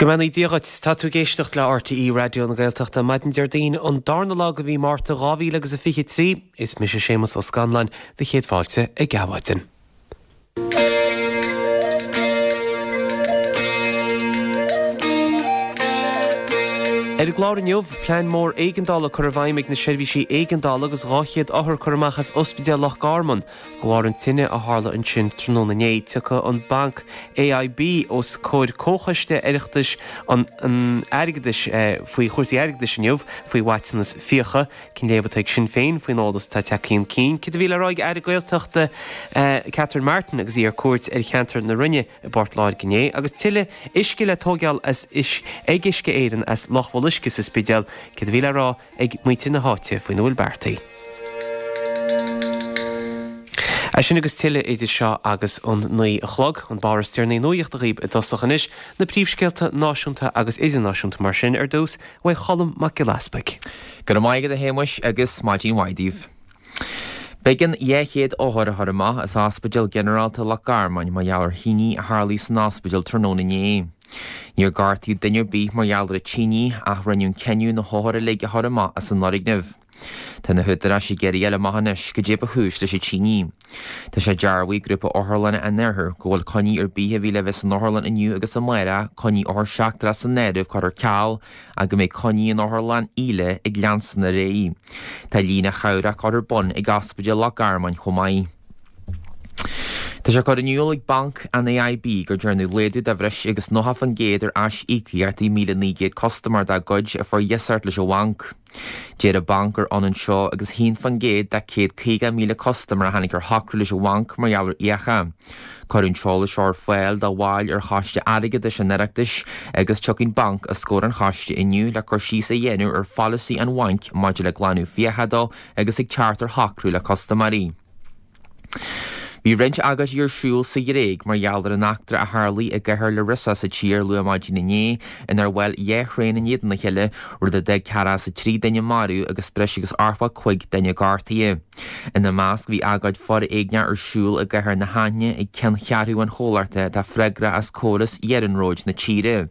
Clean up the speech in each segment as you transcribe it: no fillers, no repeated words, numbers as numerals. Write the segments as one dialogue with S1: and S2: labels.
S1: Go mbeannaí Dia dhuit. Tá tú ag éisteacht le RTÉ Raidió na Gaeltachta maidin Déardaoin an darna lá de mhí Márta 2023. Is mise Séamus Ó Scanláin, do chéad fáilte ag Adhmhaidin. Ar an gclár inniu, plean mór éigeandála curtha i bhfeidhm ag na seirbhísí éigeandála agus 200 othar curtha amach as Ospidéal Loch Garman de bharr an tine a tharla ansin tráthnóna inné. Tiocfaidh an banc AIB os comhair Comhchoiste Oireachtais an Airgeadais faoi chúrsaí airgeadais inniu faoi mhaiteanas fiacha. Cén léamh atá ag Sinn Féin faoin eolas atá tagtha chun cinn? Céard a bhí le rá ag Aire Gaeltachta Catherine Martin agus í ar cuairt ar cheantar na Rinne i bPort Láirge inné? Agus tuilleadh uisce le tóigeáil as ag Uisce Éireann as Loch Bholuisce sa Spidéal, céard a bhí le rá ag muintir na háite faoina bhfuil beartaithe? É sin agus tuilleadh idir seo agus an 9 a chlog. An barr is deireanaí nuachta dhaoib i dtosach anois, na príomhscéalta náisiúnta agus idirnáisiúnta mar sin ar dtús uaidh Cholm Mac Giolla Easpaig.
S2: Go raibh maith agat a Shéamuis agus maidin mhaith daoibh. B'éigean 200 othar a chur amach as Ospidéal Ginearálta Loch Garman mar gheall ar thine a tharlaigh san ospidéal tráthnóna inné. Níor gortaíodh duine ar bith mar gheall ar an tine ach rinneadh an cinneadh na hothair uilig a chur amach as an fhoirgneamh. Tá na húdaráis ag iarraidh a fháil amach anois goidé ba chúis leis an tine. Tá sé dearbhaithe ag Grúpa Otharlanna an Iarthair go bhfuil coinní ar bith a bhí le bheith san otharlann inniu agus amárach, coinní othar seachtrach san áireamh, curtha ar ceal ach go mbeidh coinní in Otharlann Íle ag leanstan ar aghaidh. Tá líne chabhrach curtha ar bun ag Ospidéal Loch Garman chomh maith. Tá sé curtha in iúl ag Banc an AIB gur dearnadh laghdú de bhreis agus 90% ar aisíocaíochtaí 1,900 custaiméir dá gcuid a fuair iasacht leis an bhanc. Deir an banc gur ionann seo agus 1% de 150,000 custaiméir a tháinig ar shocrú leis an bhanc mar gheall ar fhiacha. Cuireadh an t-eolas seo ar fáil do bhaill ar Choiste Airgeadais an Oireachtais agus tiocfaidh an banc os comhair an choiste inniu le cur síos a dhéanamh ar pholasaí an bhainc maidir le glanadh fiacha dó agus ag teacht ar shocrú le custaiméirí. Bhí roinnt agóidí ar siúl sa Ghréig mar gheall ar an eachtra a tharlaigh i gcathair Larissa sa tír luath maidin inné inar bhuail 2 thraein in éadan a chéile, rud a d'fhág ceathracha is a 3 duine marbh agus breis agus 85 duine gortaithe. Ina measc bhí agóid foréigneach ar siúl i gcathair na hAithne ag ceanncheathrú an chomhlachta atá freagrach as córas iarnróid na tíre.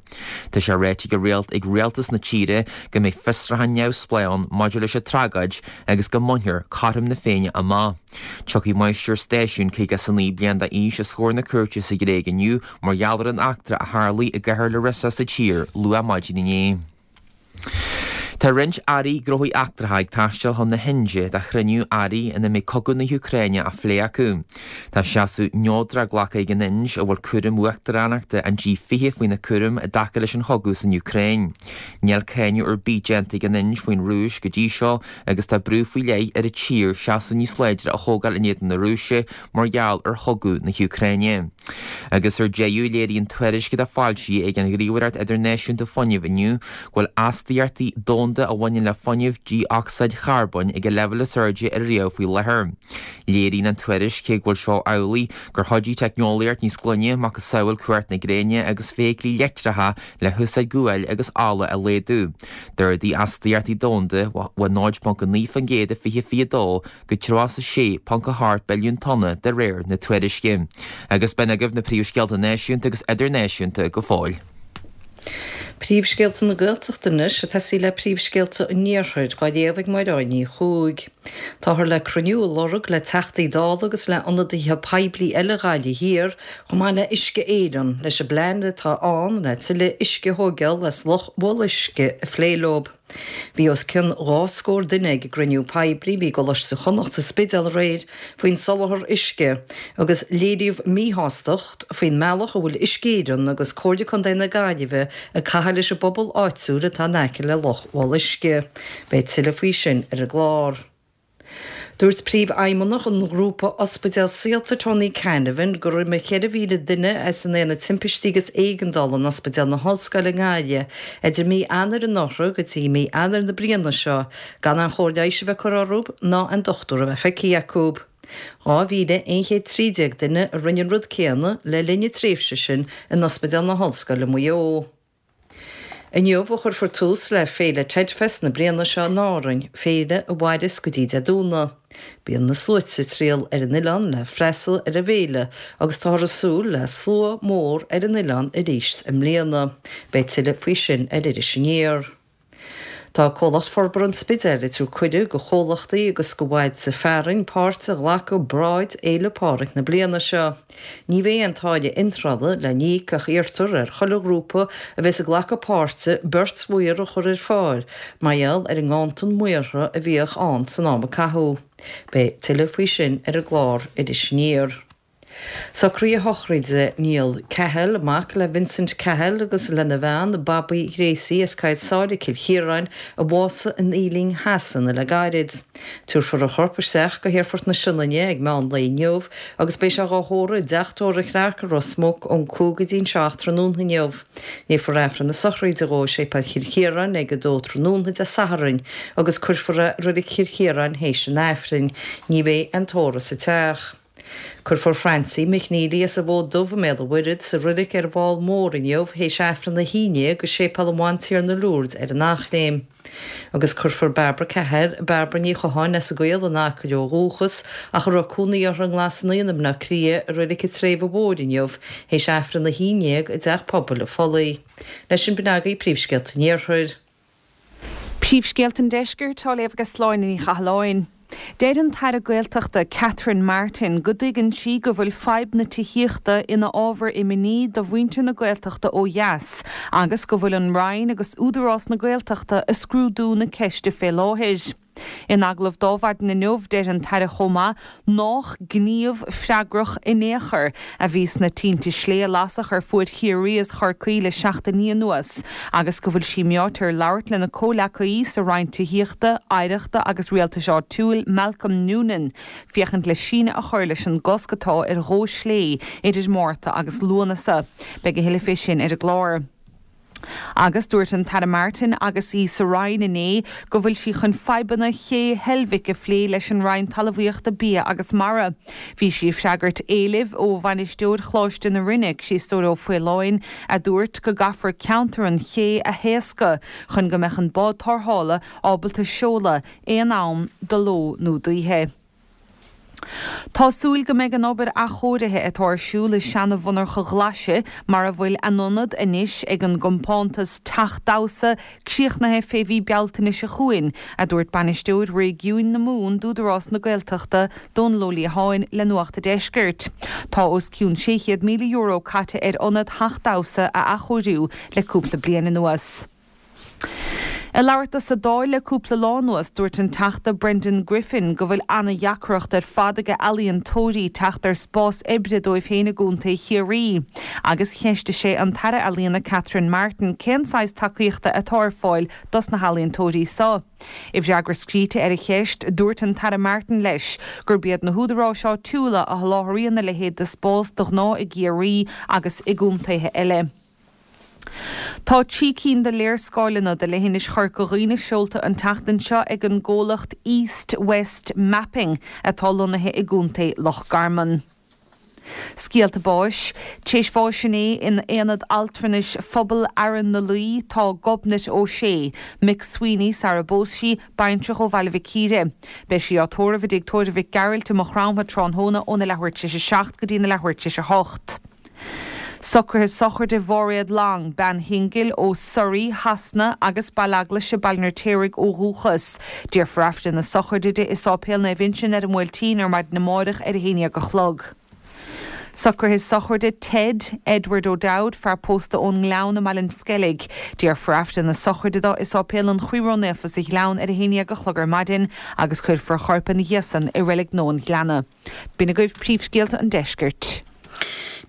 S2: Tá sé ráite ag rialtas na tíre go mbeidh fiosrúchán neamhspleách ann maidir leis an tragóid agus go mbainfear cothrom na Féinne amach. Tiocfaidh máistir stáisiúin 59 bliain d'aois os comhair na cúirte sa Ghréig inniu mar gheall ar an eachtra a tharlaigh i gcathair Larissa sa tír luath maidin inné. Tá roinnt airí gnóthaí eachtracha ag taisteal chun na hInde do chruinniú airí ina mbeidh cogadh na hÚcráine á phlé acu. Tá seasamh neodrach glactha ag an Ind, a bhfuil cúram uachtaránachta an G20 faoina cúram i dtaca leis an chogadh san Úcráin. Níl cáineadh ar bith déanta ag an Ind faoin Rúis go dtí seo agus tá brú faoi leith ar an tír seasamh níos láidre a thógáil in éadan na Rúise mar gheall ar chogadh na hÚcráine. Agus ar deireadh, léiríonn tuairisc atá foilsithe ag an Ghníomhaireacht Idirnáisiúnta Fuinnimh inniu go bhfuil astaíochtaí domhanda a bhaineann le fuinneamh dé-ocsaíd charbóin ag a leibhéal is airde ariamh faoi láthair. Léiríonn an tuairisc, cé go bhfuil seo amhlaidh, gur chuidigh teicneolaíocht níos glaine, macasamhail cumhacht na gréine agus feithiclí leictreacha le húsáid guail agus ola a laghdú. D'ardaigh astaíochtaí domhanda ó 0.9% i 2022 go 36.8 billiún tonna de réir na tuairisce. Agus b'in agaibh na príomhscéalta náisiúnta agus idirnáisiúnta go fóill.
S3: Príomhscéalta na Gaeltachta anois, ag tosaí le príomhscéalta an Iarthair, á léamh ag Máire Ní Chuaig. Táthar le cruinniú a lorg le Teachtaí Dála agus le ionadaithe poiblí eile Ghaillimh Thiar, chomh maith le Uisce Éireann, leis an bplean atá ann le tuilleadh uisce a thóigeáil as Loch Bholuisce a phlé leo. Bhí os cionn 2 scór duine ag an gcruinniú poiblí a bhí i gColáiste Chonnacht sa Spidéal aréir faoin soláthar uisce agus léiríodh míshástacht faoin mbealach a bhfuil Uisce Éireann agus Comhairle Contae na Gaillimhe ag caitheamh leis an bpobal áitiúil atá in aice le Loch Bholuisce. Beidh tuilleadh faoi sin ar an gclár. Dúirt Príomhfheidhmeannach an ghrúpa ospidéal Saolta Tony Canavan gur imigh 4,000 duine as an Aonad Timpistí agus Éigeandála in Ospidéal na hOllscoile i nGaillimh idir mí Eanáir anuraidh go dtí mí Eanáir na bliana seo gan aon chóir leighis a bheith curtha orthu ná aon dochtúir a bheith feicthe acu. 2,113 duine a rinne an rud céanna le linn na tréimhse sin in Ospidéal na hOllscoile Maigh Eo. Inniu a chuirfear tús le Féile Tedfest na bliana seo in Árainn, féile a mhaireas go dtí Dé Domhnaigh. Bíonn na sluaite ag triall ar an oileán le freastal ar an bhféile agus táthar ag súil le slua mór ar an oileán arís i mbliana. Beidh tuilleadh faoi sin ar Iris Aniar. Tá Comhlacht Forbartha an Spidéil ag tabhairt cuireadh go chomhlachtaí agus go bhailte fearainn páirt a ghlacadh i bparáid Fhéile Pádraig na bliana seo. Ní bheidh aon táille iontrála le n-íoc ach iarrtar ar chuile ghrúpa a bheas ag glacadh páirte beirt mhaor a chur ar fáil mar gheall ar an nganntan maortha a bhíodh ann san am a caitheadh. Beidh tuilleadh faoi sin ar an gclár Iris Aniar. Socruithe sochraide Niall Cahill, mac le Vincent Cahill agus lena bhean Babaí Ghracie as Coill Sáile, Cill Chiaráin, a bhásaigh in Ealing Shasana le gairid. Tabharfar a chorp isteach go hAerfort na Sionainne ag meán lae inniu agus beidh sé dhá thórramh i dteach tórraimh Chlarke i Ros Muc ón 5 go dtí an 7 tráthnóna inniu. Léifear Aifreann na sochraide dhó i Séipéal Chill Chiaráin ag 2 tráthnóna Dé Sathairn agus cuirfear é i Reilig Chill Chiaráin théis an Aifrinn. Ní bheidh aon tórramh sa teach. Cuirfear Francie McNeely as an bhFód Dubh i mBéal an Mhuirthead sa roilig ar an bhFál Mór inniu théis Aifreann a 11 i Séipéal an Bhantiarna Lourdes ar an Eachléim. Agus cuirfear Barbara Cahill, Barbara Ní Chatháin as an gCaol in Acaill ó dhúchas ach a raibh cónaí uirthi i nGlas Naíon i mBleá Cliath i Reilig an tSléibhe Mhóir inniu théis Aifreann a 11 i dTeach Pobail an Phollaigh. Leis sin b'in agaibh príomhscéalta an Iarthair.
S4: Príomhscéalta an Deiscirt á léamh ag Sláine Ní Chathalláin. Deir an tAire Gaeltachta Catherine Martin go dtuigeann sí go bhfuil fadhb na tithíochta ina ábhar imní do mhuintir na Gaeltachta ó dheas agus go bhfuil an Roinn agus Údarás na Gaeltachta ag scrúdú na ceiste fé láthair. In agallamh do Adhmhaidin inniu, deir an tAire chomh maith nách gníomh freagrach in aon chor a bhí sna tinte slé a lasadh ar fuaid Chiarraí is Chorcaí le seachtainí anuas agus go bhfuil sí meáite ar labhairt lena comhleacaí sa Roinn Tithíochta, Oidhreachta agus Rialtais Áitiúil, Malcolm Noonan, féachaint le síneadh a chur leis an gcosc atá ar dhó slé idir Márta agus Lúnasa. Beidh a thuilleadh fé sin ar an gclár. Agus dúirt an tAire Martin agus í sa Roinn inné go bhfuil sí chun fadhbanna Ché Heilbhic a phlé leis an Roinn Talmhaíochta, Bia agus Mara. Bhí sí ag freagairt éilimh ó bhainisteoir Choláiste na Rinne, Criostóir Ó Faoláin, a dúirt go gcaithfear ceantar an ché a thaoscadh chun go mbeadh an bád tarrthála ábalta seoladh aon am de ló nó d'oíche. Tá súil go mbeidh an obair athchóirithe atá ar siúl i seana-mhonarcha Ghlaise, mar a bhfuil a n-ionad anois ag an gcompántas Teach Damhsa, críochnaithe fé mhí Bealtaine seo chugainn, a dúirt Bainisteoir Réigiúin na Mumhan d'Údarás na Gaeltachta, Dónal Ó Liatháin, le Nuacht a' Deiscirt. Tá os cionn €600,000 caite ar ionad Theach Damhsa a athchóiriú le cúpla bliain anuas. Ag labhairt dó sa Dáil le cúpla lá anuas, dúirt an Teachta Brendan Griffin go bhfuil ana-dheacracht ar fad ag ealaíontóirí teacht ar spás oibre dóibh féin i gContae Chiarraí agus cheistigh sé an tAire Ealaíona Catherine Martin cén saghas tacaíochta atá ar fáil dos na healaíontóirí so. I bhfreagra scríte ar a cheist, dúirt an tAire Martin leis gurb iad na húdaráis áitiúla a sholáthraíonn a leithéid de spás de ghnáth i gCiarraí agus i gcontaetha eile. Tá 3 cinn de léarscáileanna de leithinis Chorca Dhuibhne seolta an tseachtain seo ag an gcomhlacht East West Mapping atá lonnaithe i gContae Loch Garman. Scéalta báis. Tar éis bháis inné in Aonad Altranais Phobal Fhearann na Laoi tá Gobnait O'Shea, McSweeney sara bpós sí, baintreach ó Bhaile Mhic Íre. Beidh sí á tórramh i dTigh Tórraimh Mhic Gearailt i Maigh Chromtha tráthnóna óna leathuair tar éis a 7 go dtí na leathuair tar éis a 8. Socruithe sochraide Mháiréad Long, bean shingil ó Surrey, Shasana, agus Baile Eaglaise, Baile an Fheirtéaraigh ó dhúchas. Déarfar Aifreann na sochraide di i Sáipéal Naomh Uinseann ar an mBuailtín ar maidin amáireach ar a haon dhéag a chlog. Socruithe sochraide Ted, Edward O'Dowd, fear pósta ón nGleann i mBaile an Sceilg. Déarfar Aifreann na sochraide dó i Sáipéal an Chroí Ró-Naofa sa Ghleann ar a haon dhéag a chlog ar maidin agus cuirfear a chorp ina dhiaidh san i Reilig Nua an Ghleanna. B'in agaibh príomhscéalta an deiscirt.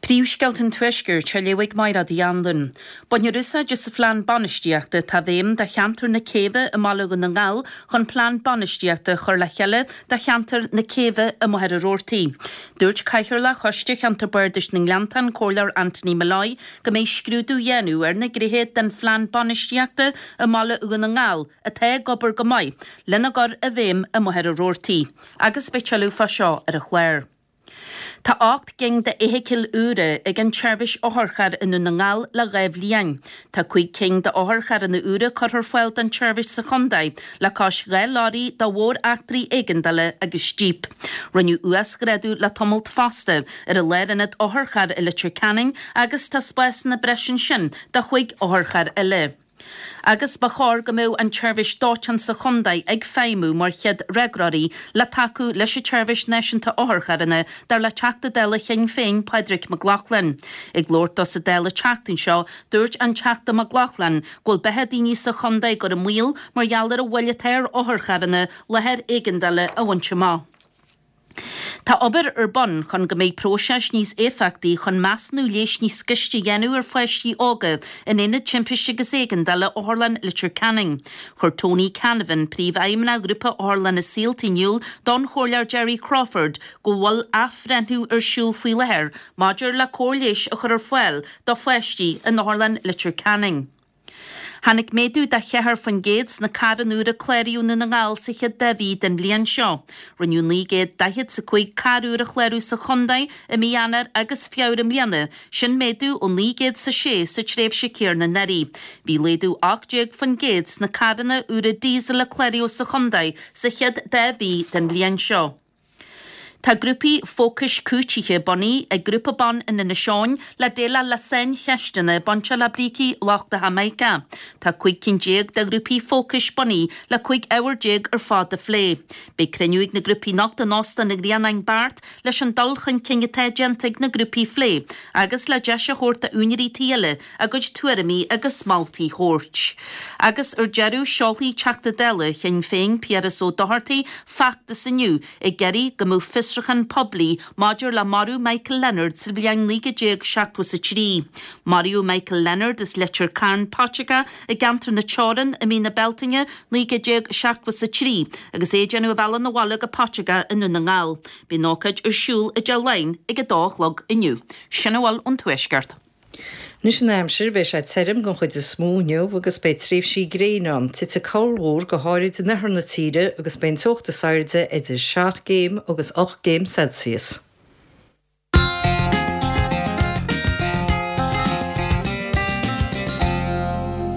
S5: Príomhscéalta an Tuaiscirt á léamh ag Mairéad Uí Anluain. Bainfear úsáid as an phlean bainistíochta atá i bhfeidhm do cheantar na Céibhe i mBaile Dhún na nGall chun plean bainistíochta a chur le chéile do cheantar na Céibhe i Machaire Rabhartaigh. Dúirt Cathaoirleach Choiste Cheantar Bardais na nGleanntach, an Comhairleoir Anthony Molloy, go mbeidh scrúdú á dhéanamh ar na gnéithe den phlean bainistíochta i mBaile Dhún na nGall atá ag obair go maith lena gcur i bhfeidhm i Machaire Rabhartaigh. Agus beidh tuilleadh fá seo ar an chlár. Tá 8 gcinn d'fheithicil úra ag an tseirbhís otharcharr i nDún na nGall le 2 bhliain. Tá 5 cinn d'otharcharranna úra curtha ar fáil don tseirbhís sa chontae le cois 2 leoraí do mhór-eachtraí éigeandála agus jíp. Rinneadh uasghrádú le tamalt fosta ar an lárionad otharcharr i Leitir Ceanainn agus tá spásanna breise ansin do chúig otharcharr eile. Agus ba chóir go mbeadh an tseirbhís dóiteáin sa chontae ag feidhmiú mar chéad fhreagróirí le tacú leis an tseirbhís náisiúnta otharcharranna, dar le Teachta Dála Shinn Féin Pádraig Mac Lochlainn. Ag labhairt dó sa Dáil an tseachtain seo, dúirt an Teachta Mac Lochlainn go bhfuil beatha daoine sa chontae á gcur i mbaol mar gheall ar an mhoill atá ar otharcharranna láthair éigeandála a bhaint amach. Tá obair ar bun chun go mbeidh próiseas níos éifeachtaí chun measúnú leighis níos gaiste a dhéanamh ar pháistí óga in Aonad Timpiste agus Éigeandála Otharlann Leitir Ceanainn. Chuir Tony Canavan, Príomhfheidhmeannach Ghrúpa Otharlanna Saolta in iúl don Chomhairleoir Gerry Crawford go bhfuil athbhreithniú ar siúl faoi láthair maidir le cóir leighis a chur ar fáil do pháistí in Otharlann Leitir Ceanainn. Tháinig méadú de 4% sna carranna úra a cláraíodh i nDún na nGall sa chéad dá mhí den bhliain seo. Rinneadh 945 carr úr a chlárú sa chontae i mí Eanáir agus Feabhra i mbliana, sin méadú ó 906 sa tréimhse céanna anuraidh. Bhí laghdú 18% sna carranna úra díosail a cláraíodh sa chontae sa chéad dá mhí den bhliain seo. Tá grúpaí fócais cúitithe bunaithe ag grúpa ban in Inis Eoghain le déileáil le saincheisteanna bainteach le brící lochtacha mica. Tá 15 cinn de ghrúpaí fócais bunaithe le 15 ábhar ar fad a phlé. Beidh cruinniú ag na grúpaí anocht in Óstán an Ghrianáin Beart leis an dul chun cinn atá déanta ag na grúpaí a phlé agus le deis a thabhairt d'úinéirí tí eile a gcuid tuairimí agus moltaí a thabhairt. Agus ar deireadh, seolfaidh Teachta Dála Shinn Féin Piaras Ó Dochartaigh feachtas inniu ag iarraidh go mbeadh fiosrúchán poiblí maidir le marú Michael Leonard sa bhliain 1973. Maraíodh Michael Leonard as Leitir Cairn Paiteagó i gceantar na Teorann i mí na Bealtaine 1973 agus é ag déanamh a bhealach 'na bhaile go Paiteagó i nDún na nGall. Beidh an ócáid ar siúl i dTigh Laighean ag a dó a chlog inniu. Sin a bhfuil ón Tuaisceart.
S3: Anois an aimsir, beidh sé tirim den chuid is mó inniu agus beidh tréimhsí gréine ann. Titfidh corrmhúr, go háirid in oirthear na tíre, agus beidh an teocht is airde idir 7 gcéim agus 8 gcéim Celsius.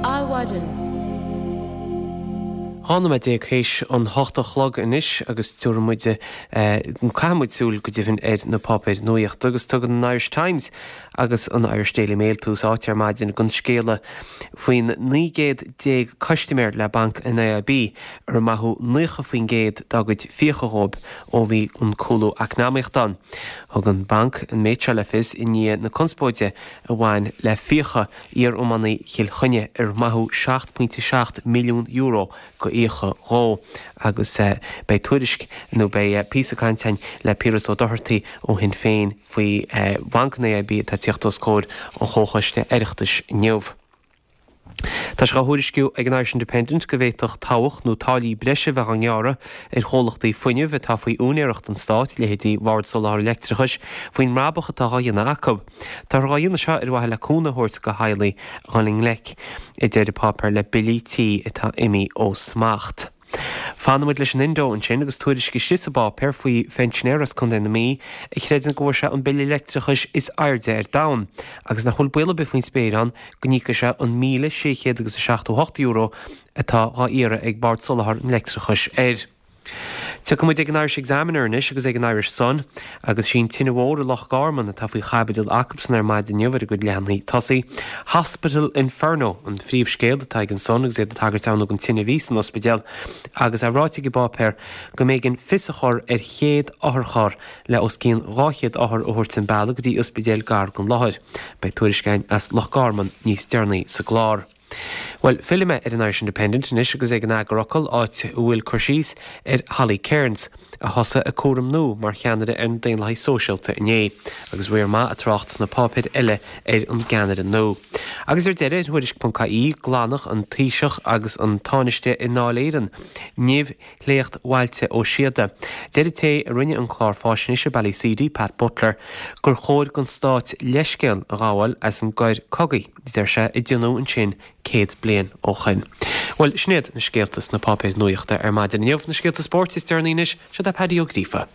S1: Adhmhaidin. 12 nóiméad théis an hocht a chlog anois agus tabharfaidh muid, caithfidh muid súil go deimhin ar na páipéir nuaíochta agus tugann an Irish Times agus an Irish Daily Mail tús áite ar maidin don scéala faoin 19 gcéad custaiméir le banc an AIB ar maitheadh 90% dá gcuid fiacha dhóibh ó bhí an cúlú eacnamaíochta ann. Thug an banc an méid seo le fios i ndiaidh na conspóide a bhain le fiacha iar-iománaí Chill Chainnigh ar maitheadh €7.7 milliún go fhiacha dhó agus beidh tuairisc nó beidh píosa cainte againn le Piaras Ó Dochartaigh ó Shinn Féin faoi Bhanc an AIB atá ag tíocht os comhair an Chomhchoiste Oireachtais inniu. Tá sé á thuairisciú ag an Irish Independent go bhféadfadh tobhach nó táillí breise bheith á ngearradh ar chomhlachtaí fuinnimh atá faoi úinéireacht an stáit, leithéidí Bhord Soláthair Leictreachais, faoin mbrabach atá á dhéanamh acu. Táthar á dhéanamh seo ar mhaithe le cúnamh a thabhairt do theaghlaigh a dhul i ngleic, a deir an páipéar, le billí tí atá imithe ó smacht. Fanfaidh muid leis an Indo ansin agus tuairisc istigh sa bpáipéar faoi phensinéir as Contae na Mí a chreideann go bhfuair sé an bille leictreachais is airde ar domhan agus nach bhfuil baol ar bith faoin spéir ann go n-íocfaidh sé an €1,600 agus €78 atá dhá iarraidh ag Bord Soláthair an Leictreachais air. Tiocfaidh muid ag an Irish Examiner anois agus ag an Irish Sun agus sí an tine mhór i Loch Garman atá faoi chaibidil acubsan ar maidin inniu ar a gcuid leathanaigh tosaigh. Hospital Inferno an phríomhscéal atá ag an Sun agus iad ag tagairt ann don tine a bhí san ospidéal agus é ráite ag an bpáipéar go mb'éigean fios a chur ar chéad otharcharr le os cionn 200 othar a thabhairt an bealach go dtí ospidéal gar don láthair. Beidh tuairisc againn as Loch Garman níos deireanaí sa gclár. Bhuel, fillfidh mé ar an Irish Independent anois agus ag an eagarfhocal, áit a bhfuil cur síos ar Holly Cairns, a thosaigh a cúram nua mar cheannaire ar na Daonlathaigh Sóisialta inné, agus riar maith ag trácht sna páipéir eile ar an gceannaire nua. Agus ar deireadh, ar Thuairisc.ie, glanadh an Taoiseach agus an Tánaiste i nDáil Éireann nimh Shléacht Bhailte Ó Síoda. Deir an té a rinne an clár fáisnéise Ballyseedy, Pat Butler, gur chóir don stát leithscéal a ghabháil as an gcoir cogaidh, a deir sé, a déanadh ansin 100 bliain ó shoin. Bhuel, sin iad na scéalta sna páipéir nuachta ar maidin inniu. Na scéalta spóirt is deireanaí anois, seo é Paddy Ó Gríofa.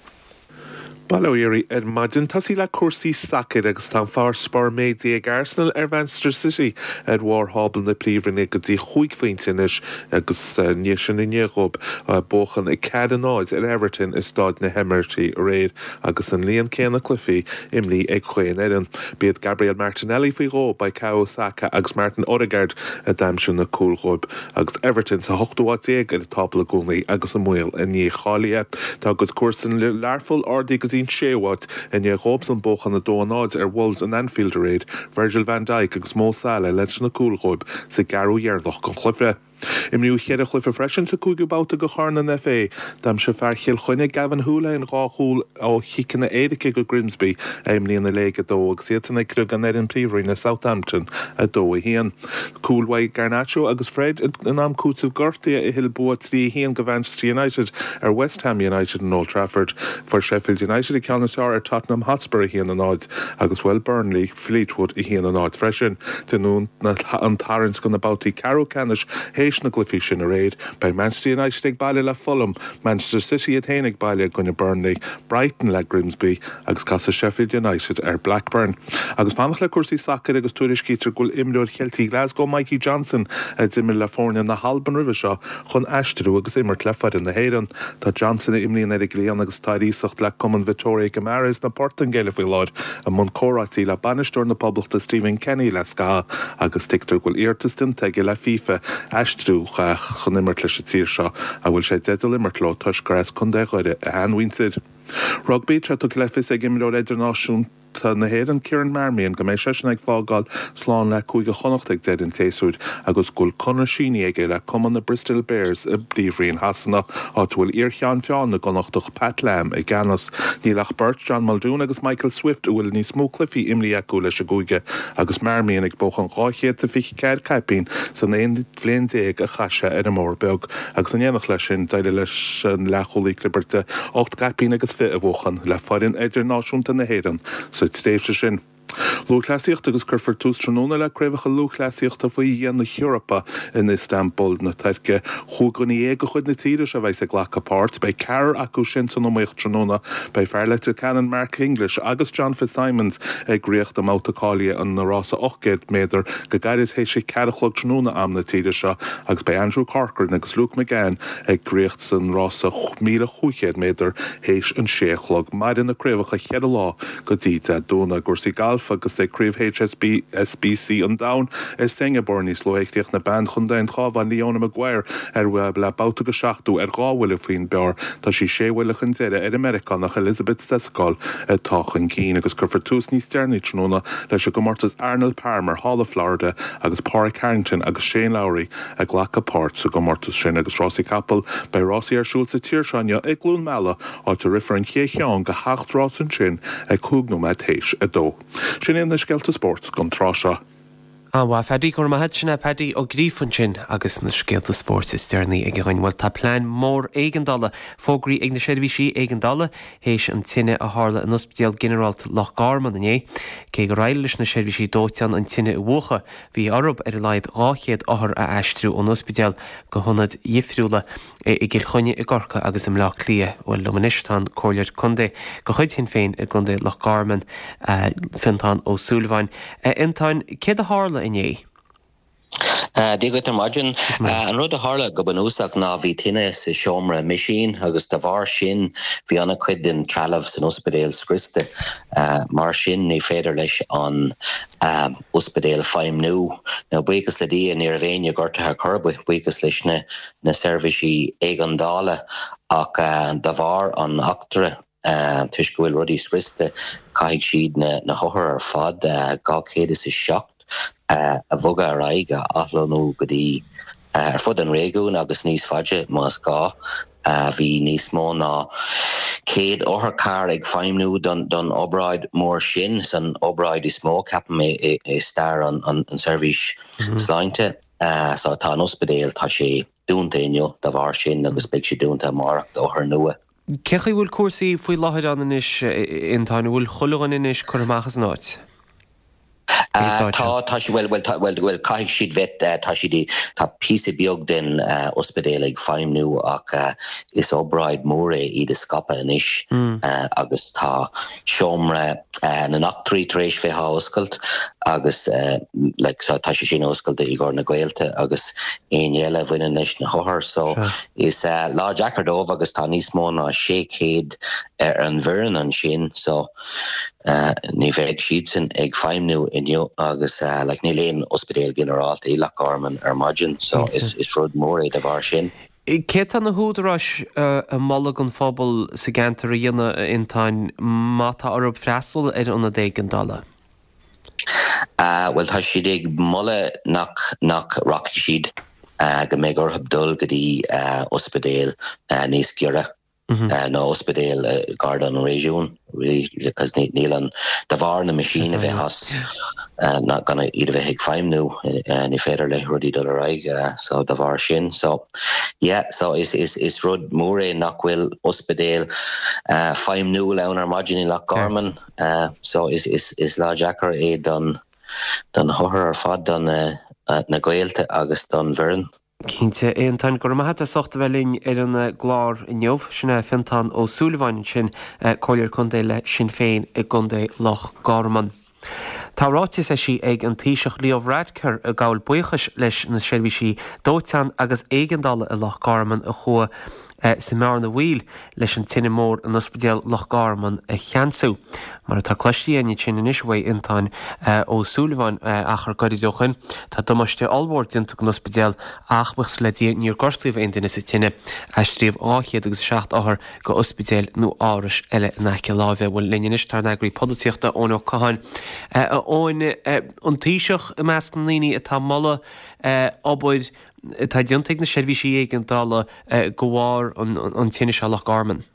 S6: Bail ó Dhia oraibh ar maidin. Tosaí le cúrsaí sacair agus tá an farasbarr méadaithe ag Arsenal ar Mhanchester City ar bharr thábla na Príomhroinne go dtí chúig phointe anois agus i ndiaidh sin i ndiaidh dhóibh buachan 4, 0 ar Everton i Stáid na hEimirítí aréir agus an líon céanna cluichí imrithe ag chaon fhoireann. B'iad Gabriel Martinelli faoi dhó, Bukayo Saka agus Martin Odegaard a d'aimsigh na cúil dhóibh. Agus Everton sa hochtú háit déag ar an tábla i gcónaí agus i mbaol a ndícháilithe. Tá a gcuid comharsan Learpholl ardaithe go dtí an séú háit i ndiaidh dhóibhsan buachan 2-0 ar Wolves in Anfield aréir, Virgil van Dijk agus Mo Salah leis na cúil dhóibh sa gceathrú dheireanach den chluiche. Imríodh cheithre chluiche freisin sa cúigiú babhta de Chorn an FA. D'aimsigh fear Chill Chainnigh, Gavin Holohan dhá chúl ó chiceanna éirice do Grimsby a imríonn i Léig 2 agus iadsan ag criogadh an fhoireann Príomhroinne Southampton 2-1. Cúil uaidh Garnacho agus Fred in am cúitimh gortaithe a thuill bua 3-1 do Mhanchester United ar West Ham United in Old Trafford. Fuair Sheffield United an ceann is fearr ar Tottenham Hotspur 1-0 agus bhuail Burnley Fleetwood 1-0 freisin. Dé Luain an tarraingt do na babhtaí ceathrú ceannais théis na gcluichí sin aréir. Beidh Manchester United ag baile le Fulham, Manchester City iad féin ag baile i gcoinne Burnley, Brighton le Grimsby agus casfaidh Sheffield United ar Blackburn. Agus fanacht le cúrsaí sacair agus tuairiscítear go bhfuil imreoir Cheiltigh Glasgow Mikey Johnston, a d'imir le foirne na hAlban roimhe seo, chun aistriú agus imirt le foireann na hÉireann. Tá Johnston, a imríonn ar an gcliathán agus atá ar iasacht le cumann Vitoria Guimaraes na Portaingéile faoi láthair, i mbun comhráití le bainisteoir na Poblachta Stephen Kenny le scaitheamh agus tuigtear go bhfuil iarratas déanta aige le FIFA aistriú chun imirt leis an tír seo a bhfuil sé i dteideal imirt leo toisc gur as Contae Dhoire a sheanmhuintir. Rugbaí, Tá tugtha le fios ag imreoir idirnáisiúnta na hÉireann Kieran Marmion go mbeidh seisean ag fágáil slán le Cúige Chonnacht ag deireadh an tséasúir agus go bhfuil conradh sínithe aige le cumann na Bristol Bears i bPríomhroinn Shasana, áit a bhfuil iar-cheann feadhain na gConnachtach Pat Lam i gceannas. Níl ach beirt, John Muldoon agus Michael Swift, a bhfuil níos mó cluichí imrithe acu leis an gcúige agus Marmion ag buachan 224 caipín san 11 bhliain a chaith sé ar an mBóthar Beag agus in éineacht leis sin d'éirigh leis an leathchúlaí clibirte 8 gcaipín agus 20 a bhuachan le foireann idirnáisiúnta na hÉireann sa tréimhse sin. Lúthchleasaíocht agus cuirfear tús tráthnóna le Craobhacha Lúthchleasaíochta faoi dhíon na hEorpa in Iostanbul na Tuirce. Chúig dhuine dhéag de chuid na tíre seo a bheas ag glacadh páirt. Beidh ceathrar acu sin san iomaíocht tráthnóna. Beidh fear Leitir Ceanainn Mark English agus John Fitzsimons ag ritheacht i mbabhta cáilithe an rása 800 méadar go gairid théis a ceathair a chlog tráthnóna am na tíre seo agus beidh Andrew Corcoran agus Luke McGann ag ritheacht san rása 1,500 méadar théis an sé a chlog. Mairfidh na craobhacha cheithre lá go dtí Dé Domhnaigh. I gcúrsaí gailf agus ag Craobh HSBC an Domhain i Singapore níos luaithe chríochnaigh bean Chontae an Chabháin Leona Maguire ar le babhta go seachtú ar dhá bhuille faoin bpar. Tá sí sé bhuille chun deiridh ar an Meiriceánach Elizabeth Stejskal atá chun cinn agus cuirfear tús níos deireanaí tráthnóna leis an gcomórtas Arnold Palmer thall i Florida agus Pádraig Harrington agus Shane Lowry ag glacadh páirt sa gcomórtas sin. Agus rásaí capall, beidh rásaí ar siúl sa tír seo inniu i gCluain Meala, áit a rithfear an chéad cheann de sheacht rás ansin ag cúig nóiméad théis a dó. Sin iad na scéalta spóirt don tráth seo.
S1: An-mhaith, Phaddy, go raibh maith agat. Sin é Paddy Ó Gríofa ansin agus na scéalta spóirt is deireanaí aige dhúinn. Bhuel, tá plean mór éigeandála fógraithe ag na seirbhísí éigeandála théis an tine a tharla in Ospidéal Ginearálta Loch Garman inné. Cé gur éirigh leis na seirbhísí dóiteáin an tine a mhúchadh, bhí orthu ar a laghad 200 othar a aistriú ón ospidéal go hionaid dhifriúla i gCill Chainnigh, i gCorcaigh agus i mBleá Cliath. Bhuel, liom anois tá an Comhairleoir Contae de chuid Shinn Féin i gContae Loch Garman, Fionntán Ó Súilleabháin. A Fhionntáin, céard a tharla inné?
S7: Dia dhuit ar maidin. An rud a tharla go bunúsach ná bhí tine sa seomra meaisín agus de bharr sin bhí an-chuid den trealamh san ospidéal scriosta. Mar sin ní féidir leis an ospidéal feidhmniú. Now buíochas le Dia ní raibh éinne gortaithe ar chor ar bith, buíochas leis na na seirbhísí éigeandála ach de bharr an eachtra, toisc go bhfuil rudaí scriosta, caithfidh siad na hothair ar fad, 207, a bhogadh ar aghaidh, a athlonnú go dtí ar fud an réigiúin agus níos faide más gá. Bhí níos mó ná 100 otharcharr ag feidhmniú don obráid mór sin, san obráid is mó, ceapaim, i stair an seirbhís sláinte. So tá an ospidéal, tá sé dúnta inniu dá bharr sin agus beidh sé dúnta amárach d'othair nua.
S1: Cé chaoi bhfuil cúrsaí faoi láthair ann anois, a Fhionntáin? An bhfuil chuile dhuine anois curtha amach as an áit?
S7: Tá, tá siad, bhuel, bhuel, tá, bhuel, bhuel, caithfidh siad bheith, tá siad i, tá píosa beag den ospidéal ag feidhmniú ach is obráid mór é iad a scaipeadh anois agus tá seomra na n-eachtraí tar éis bheith á oscailt agus like so tá sé sin oscailte i gcomhair na gaolta agus éinne eile a bhaineann leis na hothair so is lá deacair dóibh agus tá níos mó ná 600 ar an bhfoireann ansin so Ní bheidh siadsan ag feidhmniú inniu agus like níl aon ospidéal ginearálta i Loch Garman ar maidin so is rud mór é de bharr sin.
S1: Céard tá na húdaráis ag moladh don phobal sa gceantar a dhéanamh, a Fhionntáin, má tá orthu freastal ar ionad éigeandála?
S7: Bhuel tá siad ag moladh nach nach rachaidh siad, go mbeidh orthu dul go dtí ospidéal níos giorra. nó ospidéal gar don réigiún really because níl an, de bharr na meaisín a bheith as, gan iad a bheith ag feidhmniú ní féidir le rudaí dul ar aghaidh so de bharr sin so yeah so is is is rud mór é nach bhfuil ospidéal feidhmniúil ann ar maidin i Loch Garman so is is is lá deacair é don don hothair ar fad don na gaolta agus don bhfoireann.
S1: Cinnte, a Fhiontáin, go raibh maith agat as ucht a bheith linn ar an gclár inniu. Sin é Fiontán Ó Súilleabháin ansin, Comhairleoir Contae le Sinn Féin i gContae Loch Garman. Tá ráiteas eisithe ag an Taoiseach Leo Varadkar ag gabháil buíochais leis na seirbhísí dóiteáin agus éigeandála i Loch Garman a chuaigh sa mbearna bhaoil leis an tine mhór in Ospidéal Loch Garman a cheansú. Mar atá cloiste againn ansin anois uaidh Fhionntán Ó Súilleabháin achar gairid ó shoin, tá damáiste ollmhór déanta don ospidéal ach, buíochas le Dia, níor gortaíodh aon duine sa tine. Aistríodh 207 othar go ospidéil nó árais eile in aice láimhe. Bhuel, linn anois tá ár n-eagraí polaitíochta, Eoin Ó Catháin. A Eoin, an Taoiseach i measc na ndaoine atá ag moladh obair atá déanta ag na seirbhísí éigeandála de bharr an tine seo i Loch Garman.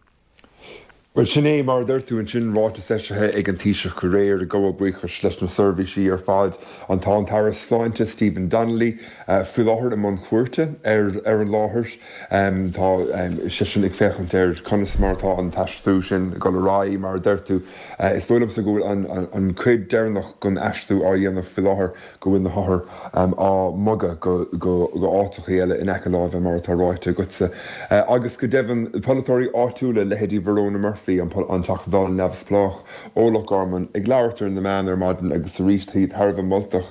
S8: Bhuel, sin é, mar a deir tú ansin, ráiteas eisithe ag an Taoiseach aréir ag gabháil buíochais leis na seirbhísí ar fad. An Tá an tAire Sláinte Stephen Donnelly faoi láthair i mbun cuairte ar ar an láthair. Tá seisean ag féachaint ar conas mar atá an t-aistriú sin ag dul ar aghaidh. Mar a deir tú, is dóigh liomsa go bhfuil an cuid deireanach den aistriú á dhéanamh faoi láthair. go bhfuil na hothair á mbogadh go áiteachaí eile in aice láimhe, mar atá ráite agatsa. Agus go deimhin, polaiteoirí áitiúla, leithéidí Verona Murphy, an Teachta Dála neamhspleách ó Loch Garman, ag labhairt ar na meáin ar maidin agus arís iad thar a bheith moltach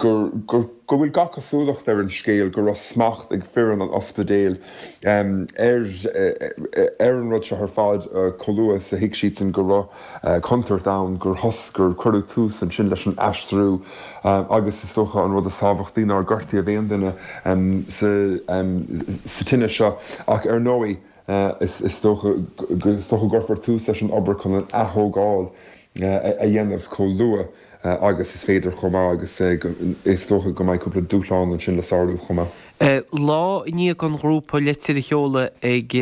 S8: gur go bhfuil gach cosúlacht ar an scéal go raibh smacht ag foireann an ospidéil ar ar an rud seo ar fad chomh luath is a thuig siadsan go raibh contúirt ann gur thos, gur cuireadh tús ansin leis an aistriú agus is dócha an rud is tábhachtaí nár gortaíodh aon duine sa tine seo ach ar ndóigh is dócha is dócha go gcuirfear tús leis an obair chun an ath-thógáil a dhéanamh chomh luath agus is féidir chomh maith agus is dócha go mbeidh cúpla dúshlán ansin le sárú chomh maith.
S1: Lá i ndiaidh don ghrúpa litir a sheoladh ag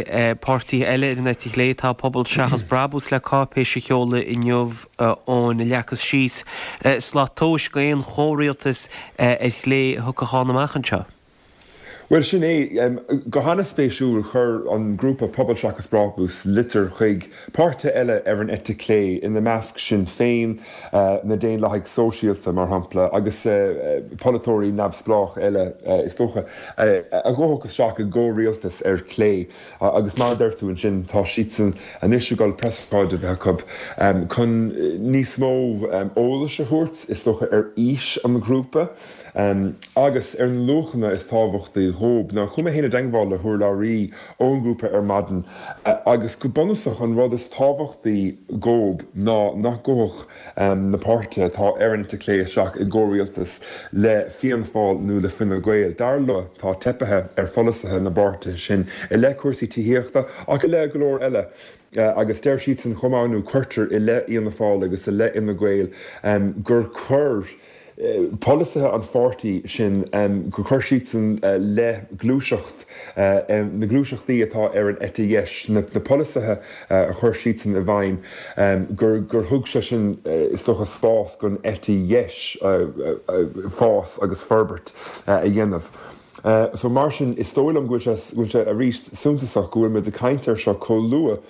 S1: páirtithe eile ar an eite chlé, tá Pobal Seachas Brabús le cáipéis a sheoladh inniu ina leagfas síos slat tomhais d'aon chomhrialtas ar chlé a thiocfadh ann amach anseo.
S8: Bhuel, sin é. Go hana-spéisiúil, chuir an grúpa Pobal Seachas Brabús litir chuig páirtithe eile ar an eite chlé, ina measc Sinn Féin, na Daonlathaigh Sóisialta, mar shampla, agus polaiteoirí neamhspleách eile, is dócha, a ghabhfadh isteach i gcomhrialtas ar chlé. Agus mar a deir tú ansin, tá siadsan anois ag dul preasócáid a bheith acu chun níos mó eolais a thabhairt, is dócha, ar fhís an ghrúpa. Agus ar na luachanna is tábhachtaí dhóib. Now, chuaigh mé féin i dteangmháil le hurlabhraí ón ngrúpa ar maidin agus go bunúsach an rud is tábhachtaí dhóib ná nach gabhfadh na páirtithe atá ar an eite chlé isteach i gcomhrialtas le Fianna Fáil nó le Fine Gael. Dar leo, tá teipithe ar pholasaithe na bpáirtithe sin i leith cúrsaí tithíochta ach i leith go leor eile. Agus deir siadsan chomh maith, nó cuirtear i leith Fhianna Fáil agus i leith Fhine Gael gur chuir polasaithe an pháirtí sin, gur chuir siadsan le gluaiseacht, na gluaiseachtaí atá ar an eite dheis, na polasaithe a chuir siadsan i bhfeidhm, gur gur thug sé sin, is dócha, spás don eite dheis fás agus forbairt a dhéanamh. So mar sin, is dóigh liom go bhfuil sé, go bhfuil sé arís suntasach go bhfuil muid ag caint air seo chomh luath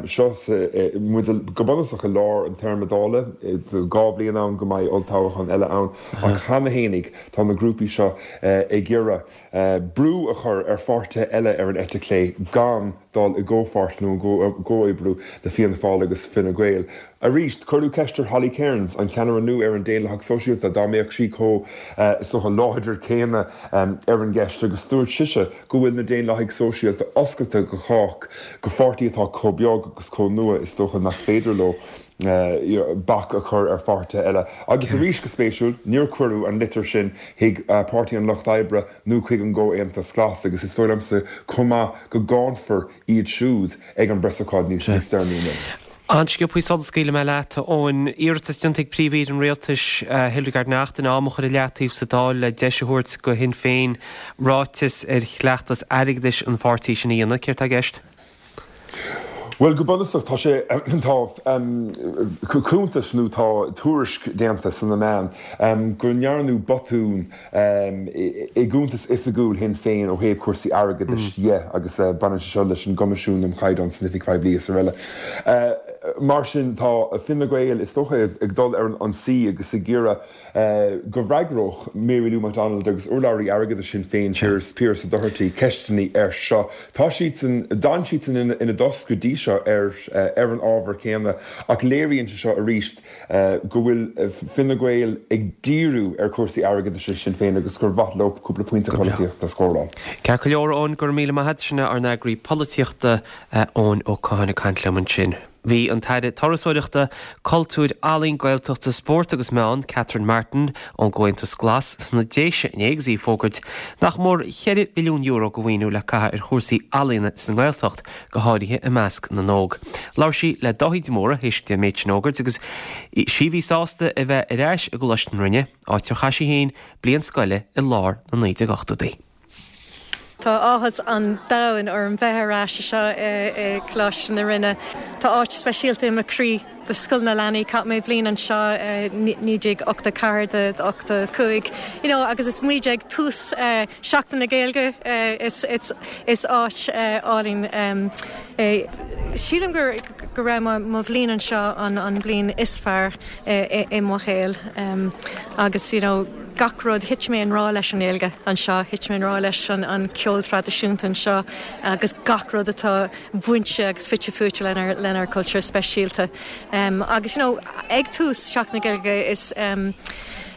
S8: seo sa, muid go bunúsach i lár an téarma Dála, 2 bhliain ann go mbeidh olltoghchán eile ann, ach cheana fhéinig tá na grúpaí seo ag iarraidh brú a chur ar pháirtithe eile ar an eite chlé gan dul i gcomhpháirt nó i gcomhoibriú le Fianna Fáil agus Fine Gael. Arís, cuireadh ceist ar Holly Cairns, an ceannaire nua ar an Daonlathach Sóisialta, dá mbeadh sí chomh, is dócha, láidir céanna ar an gceist agus dúirt sise go bhfuil na Daonlathaigh Sóisialta oscailte do chách, do pháirtí atá chomh beag agus chomh nua, is dócha nach féidir leo bac a chur ar pháirtithe eile. Agus arís, go spéisiúil, níor cuireadh an litir sin chuig Páirtí an Lucht Oibre nó chuig an gComhaontas Glas agus is dóigh liomsa chomh maith go gcáinfear iad siúd ag an bpreasócáid níos deireanaí inniu.
S1: An-sciobthaí sula scaoilfidh mé leat, a Eoin. Iarratas déanta ag Príomh-Aoire an Rialtais, Hildegarde Naughton, am a chur i leataobh sa Dáil le deis a thabhairt do Shinn Féin ráiteas ar chleachtas airgeadais an pháirtí sin a dhéanamh. Céard tá i gceist?
S8: Bhuel, go bunúsach, tá sé, tá cuntas nó tá tuairisc déanta sna meáin go ndearnadh botún i gcuntas oifigiúil Shinn Féin ó thaobh cúrsaí airgeadais dhe agus baineann sé seo leis an gCoimisiún um Chaighdeán san Oifig Poiblí is araile. Mar sin tá Fine Gael is dócha ag dul ar an ionsaí agus ag iarraidh go bhfreagródh Mary Lou McDonald agus urlabhraí airgeadais Shinn Féin, Pearse Doherty, ceisteanna air seo. Tá siadsan, d'fhan siadsan ina dtost go dtí seo ar an ábhar céanna ach léiríonn sé seo arís go bhfuil Fine Gael ag díriú ar chúrsaí airgeadais Shinn Féin agus gur mhaith leo cúpla pointe polaitíochta a scóráil.
S1: Ceart go leor, Eoin, go raibh míle maith agat. Sin é ár n-eagraí polaitíochta, Eoin Ó Catháin ag caint liom ansin. Bhí an tAire Turasóireachta, Cultúir, Ealaíon, Gaeltachta, Spóirt agus Meán, Catherine Martin, ón gComhaontas Glas, sna Déise inné agus í ag fógairt nach mór €4 mhilliún de mhaoiniú le caitheamh ar chúrsaí ealaíona sa nGaeltacht. go háirithe i measc na n-óg. Labhair sí le Dáithí de Mórdha théis di an méid sin a fhógairt agus sí a bhí sásta a bheith ar ais i gColáiste na Rinne, áit ar chaith sí féin bliain scoile i lár na 1980idí.
S9: Tá áthas an domhain orm bheith ar ais anseo i gColáiste na Rinne. Tá áit speisialta i mo chroí do Scoil na Leanaí. Chaith mé bliain anseo i 1984 do 85 you know agus is muid ag tús Seachtain na Gaeilge is áit álainn é. Sílim go go raibh mo bhliain anseo an bliain is fearr i mo shaol agus you know gach rud, thit mé i ngrá leis an nGaeilge anseo, thit mé i ngrá leis an ceol traidisiúnta anseo agus gach rud atá bainte agus fite fuaite lenár lenár cultúr speisialta. Agus you know ag tús Seachtain na Gaeilge is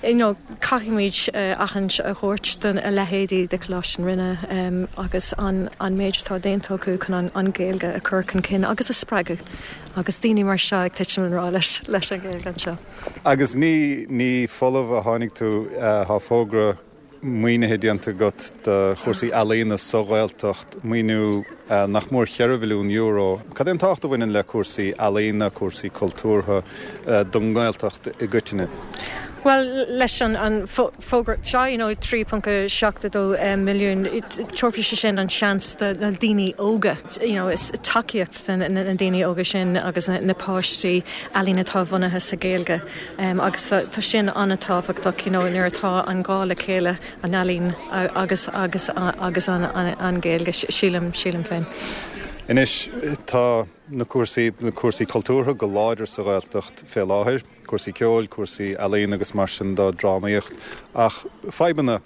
S9: you know caithfimid aithint a thabhairt do a leithéidí de Choláiste na Rinne agus an an méid atá déanta acu chun an an Ghaeilge a chur chun cinn agus a spreagadh agus daoine mar seo ag titim i ngrá leis leis an Ghaeilge anseo.
S10: Agus ní ní folamh a tháinig tú, tá fógra maoinithe déanta agat do chúrsaí ealaíona sa Ghaeltacht, maoiniú nach mór €4 mhilliún. Cad é an tábhacht a bhaineann le cúrsaí ealaíona, cúrsaí cultúrtha don nGaeltacht i gcoitinne?
S9: Bhuel, leis an fógra seo, you know, 3.72 milliún, tabharfaidh sé sin an seans do na daoine óga, you know, is tacaíocht do na daoine óga sin agus na páistí ealaín atá bunaithe sa Ghaeilge. Agus tá sin an-tábhachtach, you know, nuair atá an gá le chéile, an ealaín agus agus agus an Ghaeilge, sílim, sílim féin.
S10: Anois, tá na cúrsaí, na cúrsaí cultúrtha go láidir sa Ghaeltacht fé láthair, cúrsaí ceoil, cúrsaí ealaíon agus mar sin de, drámaíocht, ach fadhbanna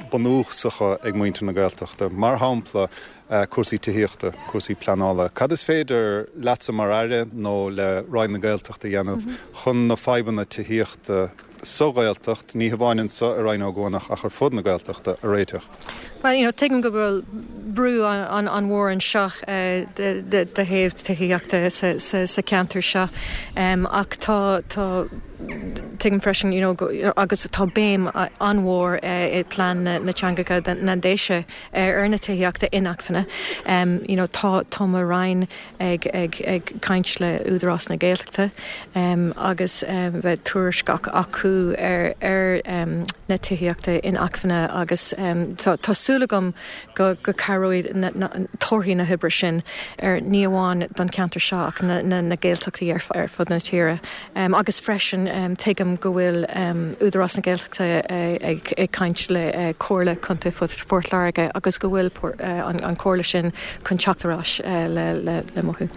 S10: bunúsacha ag muintir na Gaeltachta, mar shampla cúrsaí tithíochta, cúrsaí pleanála. Cad is féidir leatsa mar Aire nó le Roinn na Gaeltachta a dhéanamh chun na fadhbanna tithíochta sa Ghaeltacht, ní hamháin anseo i Rinn Ó gCuanach ach ar fud na Gaeltachta, a réiteach?
S9: Bhuel, you know, tuigim go bhfuil brú an-mhór anseo de thaobh tithíochta sa cheantar seo ach tá, tá, Tuigim freisin, you know, agus tá béim an-mhór i bplean na teangacha na nDéise ar na tithíochta inacmhainne. You know, tá, tá mo Roinn ag, ag, ag caint le Údarás na Gaeltachta agus beidh tuairisc acu ar, ar na tithíochta inacmhainne agus tá, tá súil agam go, go cabhróidh. Cabhróidh torthaí na hoibre sin ar ní amháin don cheantar seo ach na Gaeltachtaí ar fud na tíre. Agus freisin tuigim go bhfuil Údarás na Gaeltachta ag caint le Comhairle Contae Phort Láirge agus go bhfuil an chomhairle sin chun teacht ar ais le mothú.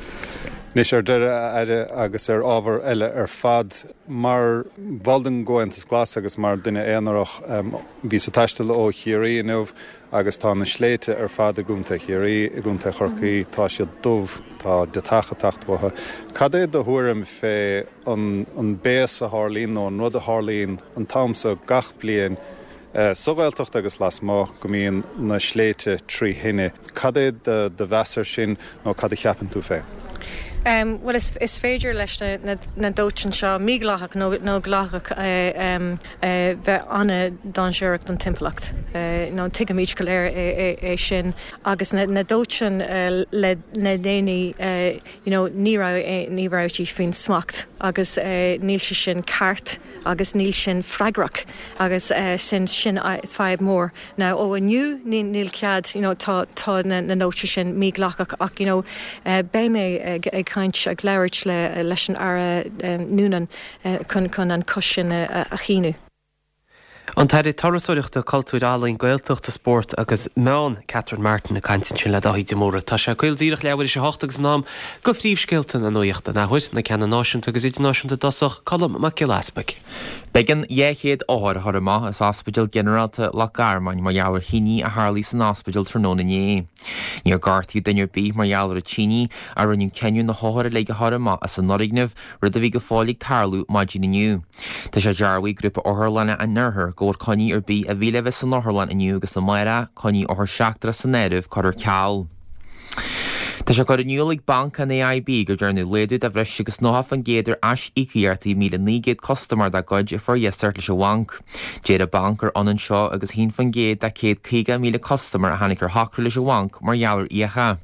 S10: Anois ar deireadh, a Aire, agus ar ábhar eile ar fad, mar bhall den gComhaontas Glas agus mar dhuine aonarach, bhíos ag taisteal ó Chiarraí inniu agus tá na sléibhte ar fad i gContae Chiarraí, i gContae Chorcaí, tá siad dubh, tá deatach ag teacht uathu. Cad é do thuairim fé an an béas a tharlaíonn nó an rud a tharlaíonn an t-am so gach bliain sa Ghaeltacht agus lasmuigh, go mbíonn na sléibhte trí thine? Cad é do mheas air sin nó cad a cheapann tú féin?
S9: Bhuel, is féidir leis na dóiteáin seo, mídhleathach nó dleathach, bheith an-dainséarach don timpeallacht. Tuigimid go léir é sin. Agus na dóiteáin le déanaí, you know, ní raibh, ní raibh siad faoin smacht agus níl sé sin ceart agus níl sin freagrach agus sin, sin fadhb mór. Now ó inniu níl cead, you know, tá tá na na dóiteáin sin mídhleathach ach you know beidh mé ag ag caint ag labhairt le leis an Aire Noonan chun chun an cosc sin a a shíniú.
S1: An tAire Turasóireachta, Cultúir, Ealaíon, Gaeltachta, Spóirt agus Meán, Catherine Martin ag caint ansin le Dáithí de Mórdha. Tá sé caol díreach leathuair tar éis a hocht agus in am do phríomhscéalta na nuachta an athuair, na ceanna náisiúnta agus idirnáisiúnta i dtosach, Colm Mac Giolla Easpaig.
S2: B'éigean 200 othar a chur amach as Ospidéal Ginearálta Loch Garman mar gheall ar thine a tharlaigh san ospidéal tráthnóna inné. Níor gortaíodh duine ar bith mar gheall ar an tine ach rinneadh cinneadh na hothair uilig a chur amach as an fhoirgneamh, rud a bhí go fóill ag tarlú maidin inniu. Tá sé dearbhaithe ag Grúpa Otharlanna an Oirthir go bhfuil coinní ar bith a bhí le bheith san otharlann inniu agus amárach, coinní othar seachtrach san áireamh, curtha ar ceal. Tá sé curtha in iúl ag Banc an AIB gur dearnadh laghdú de bhreis agus 90% ar aisíocaíochtaí 1,900 custaiméir dá gcuid a fuair iasacht leis an bhanc. Deir an banc gur ionann seo agus 1% de 150,000 custaiméir a tháinig ar shocrú leis an bhanc mar gheall ar fhiacha.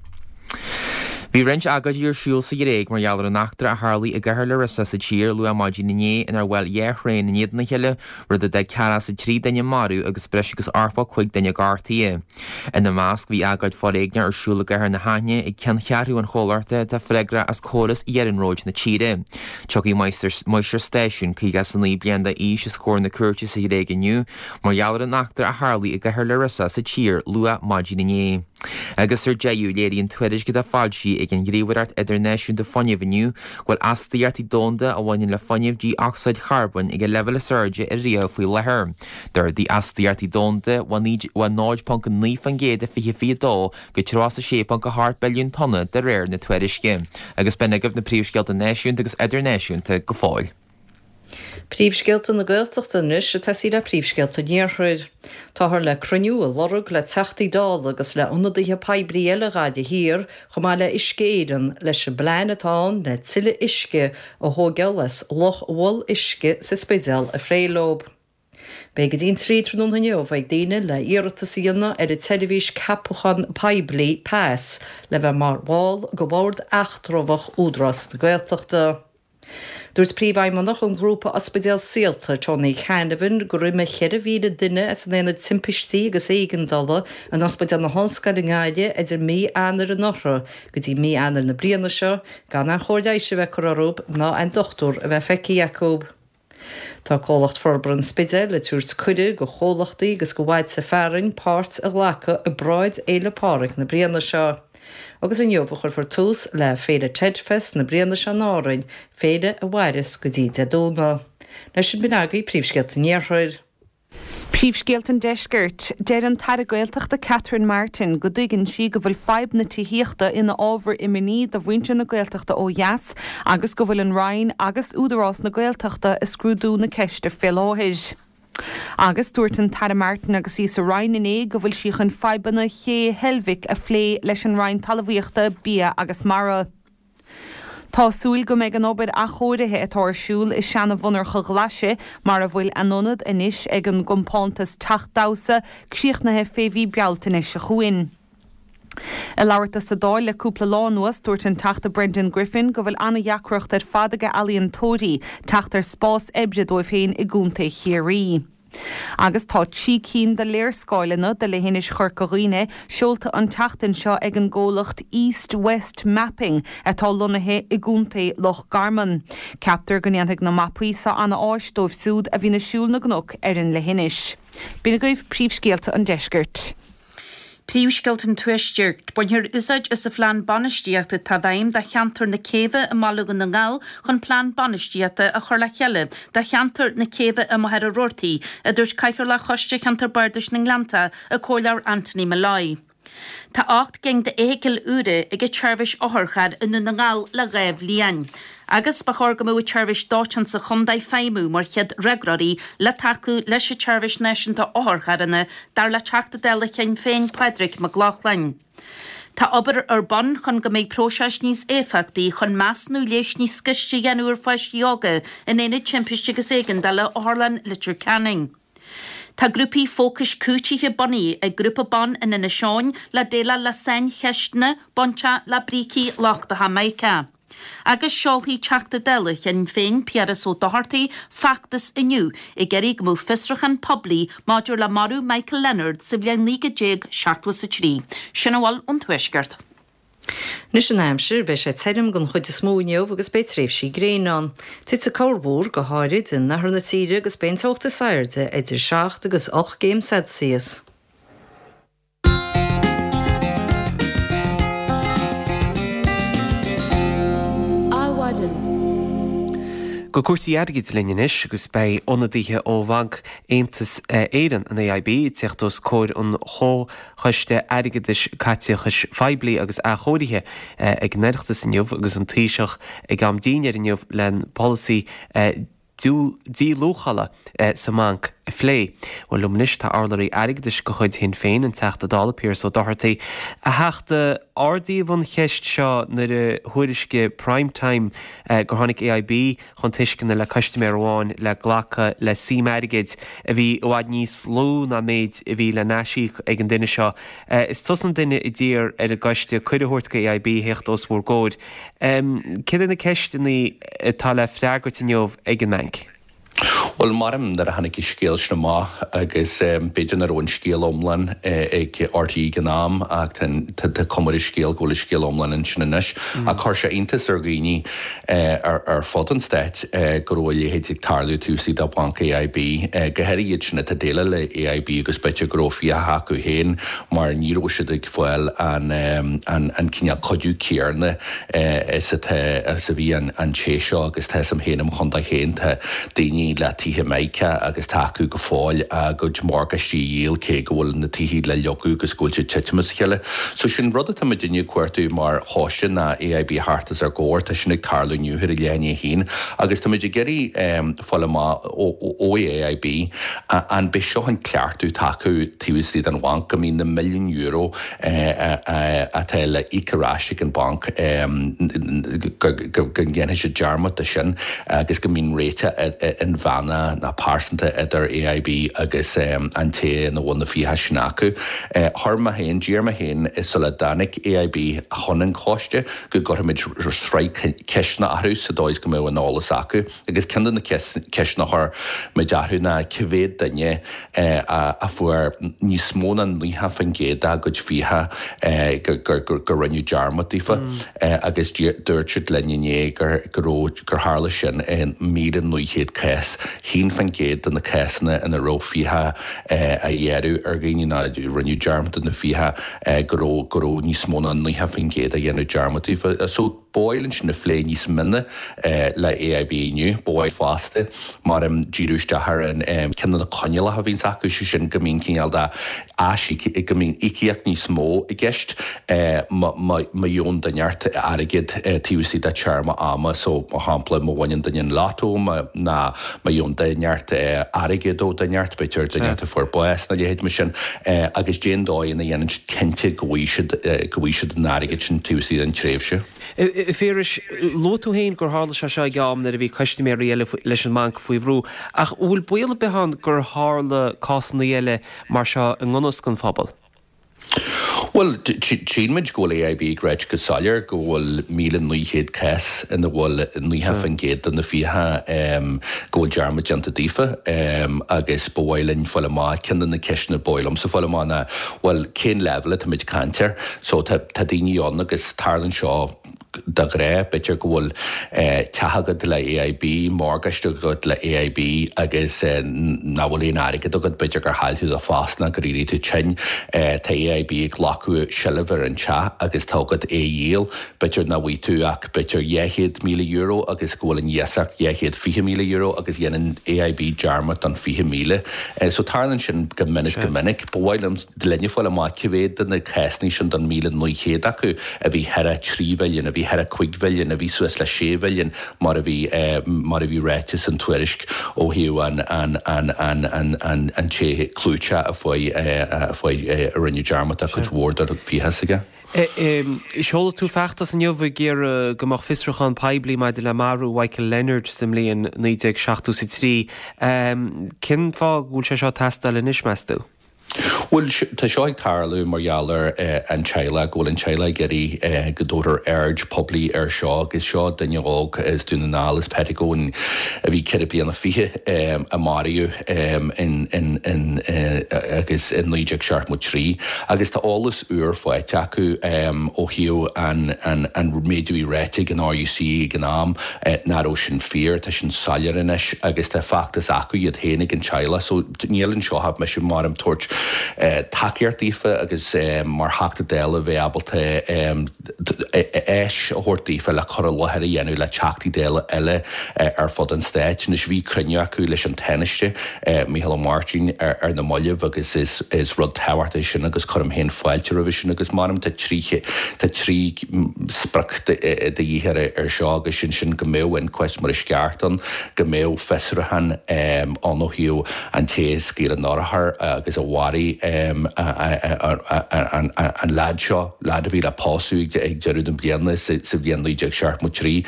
S2: Bhí roinnt agóidí ar siúl sa Ghréig mar gheall ar an eachtra a tharlaigh i gcathair Larissa sa tír luath maidin inné inar bhuail dhá thraein in éadan a chéile, rud a d'fhág 43 duine marbh agus breis agus 85 duine gortaithe. Ina measc, bhí agóid foréigneach ar siúl i gcathair na hAithne ag ceanncheathrú an chomhlachta atá freagrach as córas iarnróid na tíre. Tiocfaidh máistir stáisiúin, 59 bliain d'aois, os comhair na cúirte sa Ghréig inniu mar gheall ar an eachtra a tharlaigh i gcathair Larissa sa tír luath maidin inné. Agus ar deireadh, léiríonn tuairisc atá foilsithe ag an Ghníomhaireacht Idirnáisiúnta Fuinnimh inniu go bhfuil astaíochtaí domhanda a bhaineann le fuinneamh dí-ocsaíd charbóin ag a leibhéal is airde ariamh faoi láthair. D'ardaigh astaíochtaí domhanda ó 0.9% i 2022 go 36.8 billiún tonna de réir na tuairisce. Agus b'in agaibh na príomhscéalta náisiúnta agus idirnáisiúnta go fóill.
S3: Príomhscéalta na Gaeltachta anois ag tosaí le príomhscéalta an Iarthair. Táthar le cruinniú a lorg le Teachtaí Dála agus le ionadaithe poiblí eile Ghaillimh Thiar chomh maith le Uisce Éireann leis an bplean atá ann le tuilleadh uisce a thóigeáil as Loch Mhol Uisce sa Spidéal a phlé leo. Beidh go dtí an 3 tráthnóna inniu ag daoine le iarratas a dhéanamh ar an tseirbhís ceapachán poiblí, pas, le bheith mar bhall de bhord eatramhach Údarás na Gaeltachta. Dúirt Príomhfheidhmeannach an ghrúpa Ospidéal Saolta, Tony Canavan, gur imigh 4,000 duine as an Aonad Timpistí agus Éigeandála in Ospidéal na hOllscoile i nGaillimh idir mí Eanáir anuraidh go dtí mí Eanáir na bliana seo gan aon chóir leighis a bheith curtha orthu ná aon dochtúir a bheith feicthe acu. Tá Comhlacht Forbartha an Spidéil ag tabhairt cuireadh go chomhlachtaí agus go bhailte fearainn páirt a ghlacadh i bparáid Fhéile Pádraig na bliana seo. Agus inniu a chuirfear tús le Féile Telfest na bliana seo in Árainn, féile a mhairfeas go dtí Dé Domhnaigh. Leis sin b'in agaibh príomhscéalta an Iarthair.
S4: Príomhscéalta an Deiscirt. Deir an tAire Gaeltachta Catherine Martin go dtuigeann sí go bhfuil fadhb na tithíochta ina ábhar imní do mhuintir na Gaeltachta ó dheas agus go bhfuil an Roinn agus Údarás na Gaeltachta ag scrúdú na ceiste fé láthair. Agus dúirt an tAire Martin agus í sa Roinn inné go bhfuil sí chun fadhbanna Ché Heilbhic a phlé leis an Roinn Talmhaíochta, Bia agus Mara. Tá súil go mbeidh an obair athchóirithe atá ar siúl i seana-mhonarcha Ghlaise, mar a bhfuil a n-ionad anois ag an gcompántas Teach Damhsa, críochnaithe fé mhí Bealtaine seo chugainn. Ag labhairt dó sa Dáil le cúpla lá anuas, dúirt an Teachta Brendan Griffin go bhfuil an-dheacracht ar fad ag ealaíontóirí teacht ar spás oibre dóibh féin i gContae Chiarraí. Agus tá 3 cinn de léarscáileanna de leithinis Chorca Dhuibhne seolta an tseachtain seo ag an gcomhlacht East West Mapping atá lonnaithe i gContae Loch Garman. Ceaptar go ndéanfaidh na mapaí seo ana-áis dóibh siúd a bhíonn ag siúl na gcnoc ar an leithinis. B'in agaibh príomhscéalta an deiscirt.
S5: Príomhscéalta an Tuaiscirt. Bainfear úsáid as an phlean bainistíochta atá i bhfeidhm do cheantar na Céibhe i mBaile Dhún na nGall chun plean bainistíochta a chur le chéile do cheantar na Céibhe i Machaire Rabhartaigh, a dúirt Cathaoirleach Choiste Cheantar Bardais na nGleannta, an Comhairleoir Anthony Molloy. Tá 8 gcinn d'fheithicil úra ag an tseirbhís otharchairr i nDún na nGall le 2 bhliain. Agus ba chóir go mbeadh an tseirbhís dóiteáin sa chontae ag feidhmiú mar chéad fhreagróirí le tacú leis an tseirbhís náisiúnta otharcharranna, dar le Teachta Dála Shinn Féin Pádraig Mac Lochlainn. Tá obair ar bun chun go mbeidh próiseas níos éifeachtaí chun measúnú leighis níos gaiste a dhéanamh ar pháistí óga in Aonad Timpiste agus Éigeandála Otharlann Leitir Ceanainn. Tá grúpaí fócais cúitithe bunaithe ag Grúpa Ban in Inis Eoghain le déileáil le saincheisteanna bainteach le brící lochtacha mica. Agus seolfaidh Teachta Dála Shinn Féin Piaras Ó Dochartaigh feachtas inniu ag iarraidh go mbeadh fiosrúchán poiblí maidir le marú Michael Leonard sa bhliain 1973. Sin a bhfuil ón Tuaisceart.
S3: Anois an aimsir, beidh sé tirim den chuid is mó inniu agus beidh tréimhsí gréine ann. Titfidh corrmhúr, go háirid in oirthear na tíre agus beidh an teocht is airde idir 7 agus 8 gcéim Celsius.
S1: Adhmhaidin. Go cúrsaí airgid linn anois agus beidh ionadaithe ó Bhanc Aontas Éireann, an AIB, ag teacht os comhair an Choiste Airgeadais, Caiteachais Phoiblí agus Athchóirithe ag an Oireachtas inniu agus an Taoiseach ag am dinnéir inniu len polasaí díluachála sa mbanc a phlé. Bhuel, liom anois tá urlabhraí airgeadais de chuid Shinn Féin, an Teachta Dála Piaras Ó Dochartaigh. A Theachta, ardaíodh an cheist seo nuair a thuairiscigh Prime Time gur tháinig AIB chun tuisceana le custaiméir amháin le glacadh le suim airgid a bhí i bhfad níos lú ná méid a bhí le n-aisíoc ag an duine seo. Is tusa an duine a d'iarr ar an gcoiste cuireadh a thabhairt go AIB theacht os bhur gcomhair. Céard iad na ceisteanna atá le freagairt inniu ag an mbanc?
S11: Bhuel, maram nuair a tháinig an scéal sin amach agus b'fhéidir nach raibh an scéal iomlán ag RTÉ ag an am ach tá cuma ar an scéal go bhfuil an scéal iomlán ansin anois. Ach chuir sé iontas ar dhaoine ar fud an stáit go raibh a leithéid ag tarlú taobh istigh de Bhanc AIB, go háirithe iad sin atá ag déileáil le AIB agus b'fhéidir go raibh fiacha acu féin mar ní raibh siad ag fáil an cineál cuidiú céarna is atá is a bhí an té seo agus tá 'fhios a'm féin im chontae féin tá daoine le tithe Mica agus tá acu go fóill a gcuid morgáistí a dhíol cé go bhfuil na tithe le leagadh agus go bhfuil siad titim as a chéile. So sin rud atá muidinne ag cuartú mar choiste ná AIB a theacht os ár gcomhair, tá sin ag tarlú inniu ar a leath i ndiaidh a haon agus tá muid ag iarraidh fáil amach ó AIB an b'é seo an cleachtadh atá acu taobh istigh den bhanc go mbíonn na milliúin euro atá le íoc ar ais ag an bhanc, go ndéanfaidh siad dearmad de sin agus go mbíonn réiteach inmheánach nó pearsanta idir AIB agus an té ina bhfuil na fiacha sin acu. Chuir mé féin, d'iarr mé féin sula dtáinig AIB chun an choiste go gcuirfimid sraith ceisteanna orthu sa dóigh is go mbeadh an eolas acu. Agus ceann de na ceisteanna a chuir muid orthu ná cá mhéad duine a fuair níos mó ná 90% dá gcuid fiacha gur rinneadh dearmad daofa agus dúirt siad linn inné go raibh, gur tharla sin i 1,900 cás, 1% de na cásanna ina raibh fiacha á ghearradh ar dhaoine nó rinneadh dearmad de na fiacha go raibh, go raibh níos mó ná 90% a dhéanamh dearmad daofa. So. Ba mhaith linn sin a phlé níos mine le AIB inniu. Ba mhaith fosta mar díriú isteach ar an ceann de na coinníollacha a bhíonns acu, sé sin go mbíonn cineál de aisíoc, go mbíonn íocaíocht níos mó i gceist má gheobhann duine inteacht airgead taobh istigh de téarma ama. So, mar shampla, má bhaineann duine an lotto ná má gheobhann duine inteacht airgead ó duine inteacht, b'fhéidir duine inteacht a fuair bás nó a leithéid mar sin, agus cén dóigh ina dhéanann siad cinnte go bhfaighidh siad, go bhfaighidh siad an airgead sin taobh istigh den tréimhse.
S1: A Phiarais, luaigh tú féin gur tharla sé seo ag am nuair a bhí custaiméirí eile leis an mbanc faoi bhrú, ach an bhfuil baol ar bith ann gur tharla cásanna eile mar seo i ngan fhios don phobal?
S11: Bhuel, tchíonn muid go bhfuil AIB ag ráit go soiléir go bhfuil 1,900 cás ina bhfuil 90% de na fiacha go bhfuil dearmad déanta daofa agus ba mhaith linn fáil amach, ceann de na ceisteanna ba mhaith liomsa fáil amach ná, bhuel, cén leibhéal atáimid ag caint air? So tá daoine ann agus tarlaíonn seo de ghnáth, b'fhéidir go bhfuil teach agat le AIB, morgáiste agat le AIB agus nach bhfuil aon airgead agat, b'fhéidir gur chaill tú do phost nó gur éirigh tú tinn, tá AIB ag glacadh seilbh ar an teach agus tá agat é a dhíol, b'fhéidir nach bhfaighidh tú ach b'fhéidir €200,000 agus go bhfuil an iasacht €220,000 agus dhéanann AIB dearmad don 20,000. So tarlaíonn sin go minic go minic. Ba mhaith liom. linne fáil amach cé mhéad de na cásanna sin den 1,900 acu a bhí thar 3 mhilliún, a bhí thar 5 mhilliún, a bhí suas le 6 mhilliún mar a bhí mar a bhí ráite san tuairisc ó thaobh an an an an an an an té clúiteach a fuair a fuair a rinneadh dearmad de chuid mhór de fiacha s'aige.
S1: Sheol tú feachtas inniu ag iarraidh go mbeadh fiosrúchán poiblí maidir le marú Mhichael Leonard sa mbliain 1973. Cén fáth go bhfuil sé seo ag teastáil anois, meas tú?
S11: Bhuel, tá seo ag tarlú mar gheall ar an teaghlach, go bhfuil an teaghlach ag iarraidh go dtabharfar aird poiblí air seo agus seo duine óg as Dún na nGall, as Pettigo, a bhí ceithre bliana fichead, a maraíodh in in agus in 1973 agus tá eolas úr faighte acu ó thaobh an an méid a bhí ráite ag an RUC ag an am nach raibh sin fíor, tá sin soiléir anois agus tá feachtas acu iad féin ag an teaghlach so Níl anseo ach mise mar ag tabhairt tacaíocht daofa agus mar Theachta Dála bheith ábalta áis a thabhairt daofa le cur i láthair a dhéanamh le Teachtaí Dála eile ar fud an stáit. Anois bhí cruinniú acu leis an Tánaiste, Micheál Ó Máirtín ar na mallaibh agus is rud tábhachtach é sin agus cuirim féin fáilte roimhe sin agus measaim tá trí tá trí sprioc de dhíth ar seo agus sin sin go mbeadh inquest mar is ceart ann, go mbeadh fiosrúchán ann ó thaobh an té a scaoil an urchar agus a mharaigh an leaid seo, leaid a bhí le pósadh ag deireadh na bliana sa bhliain 1973.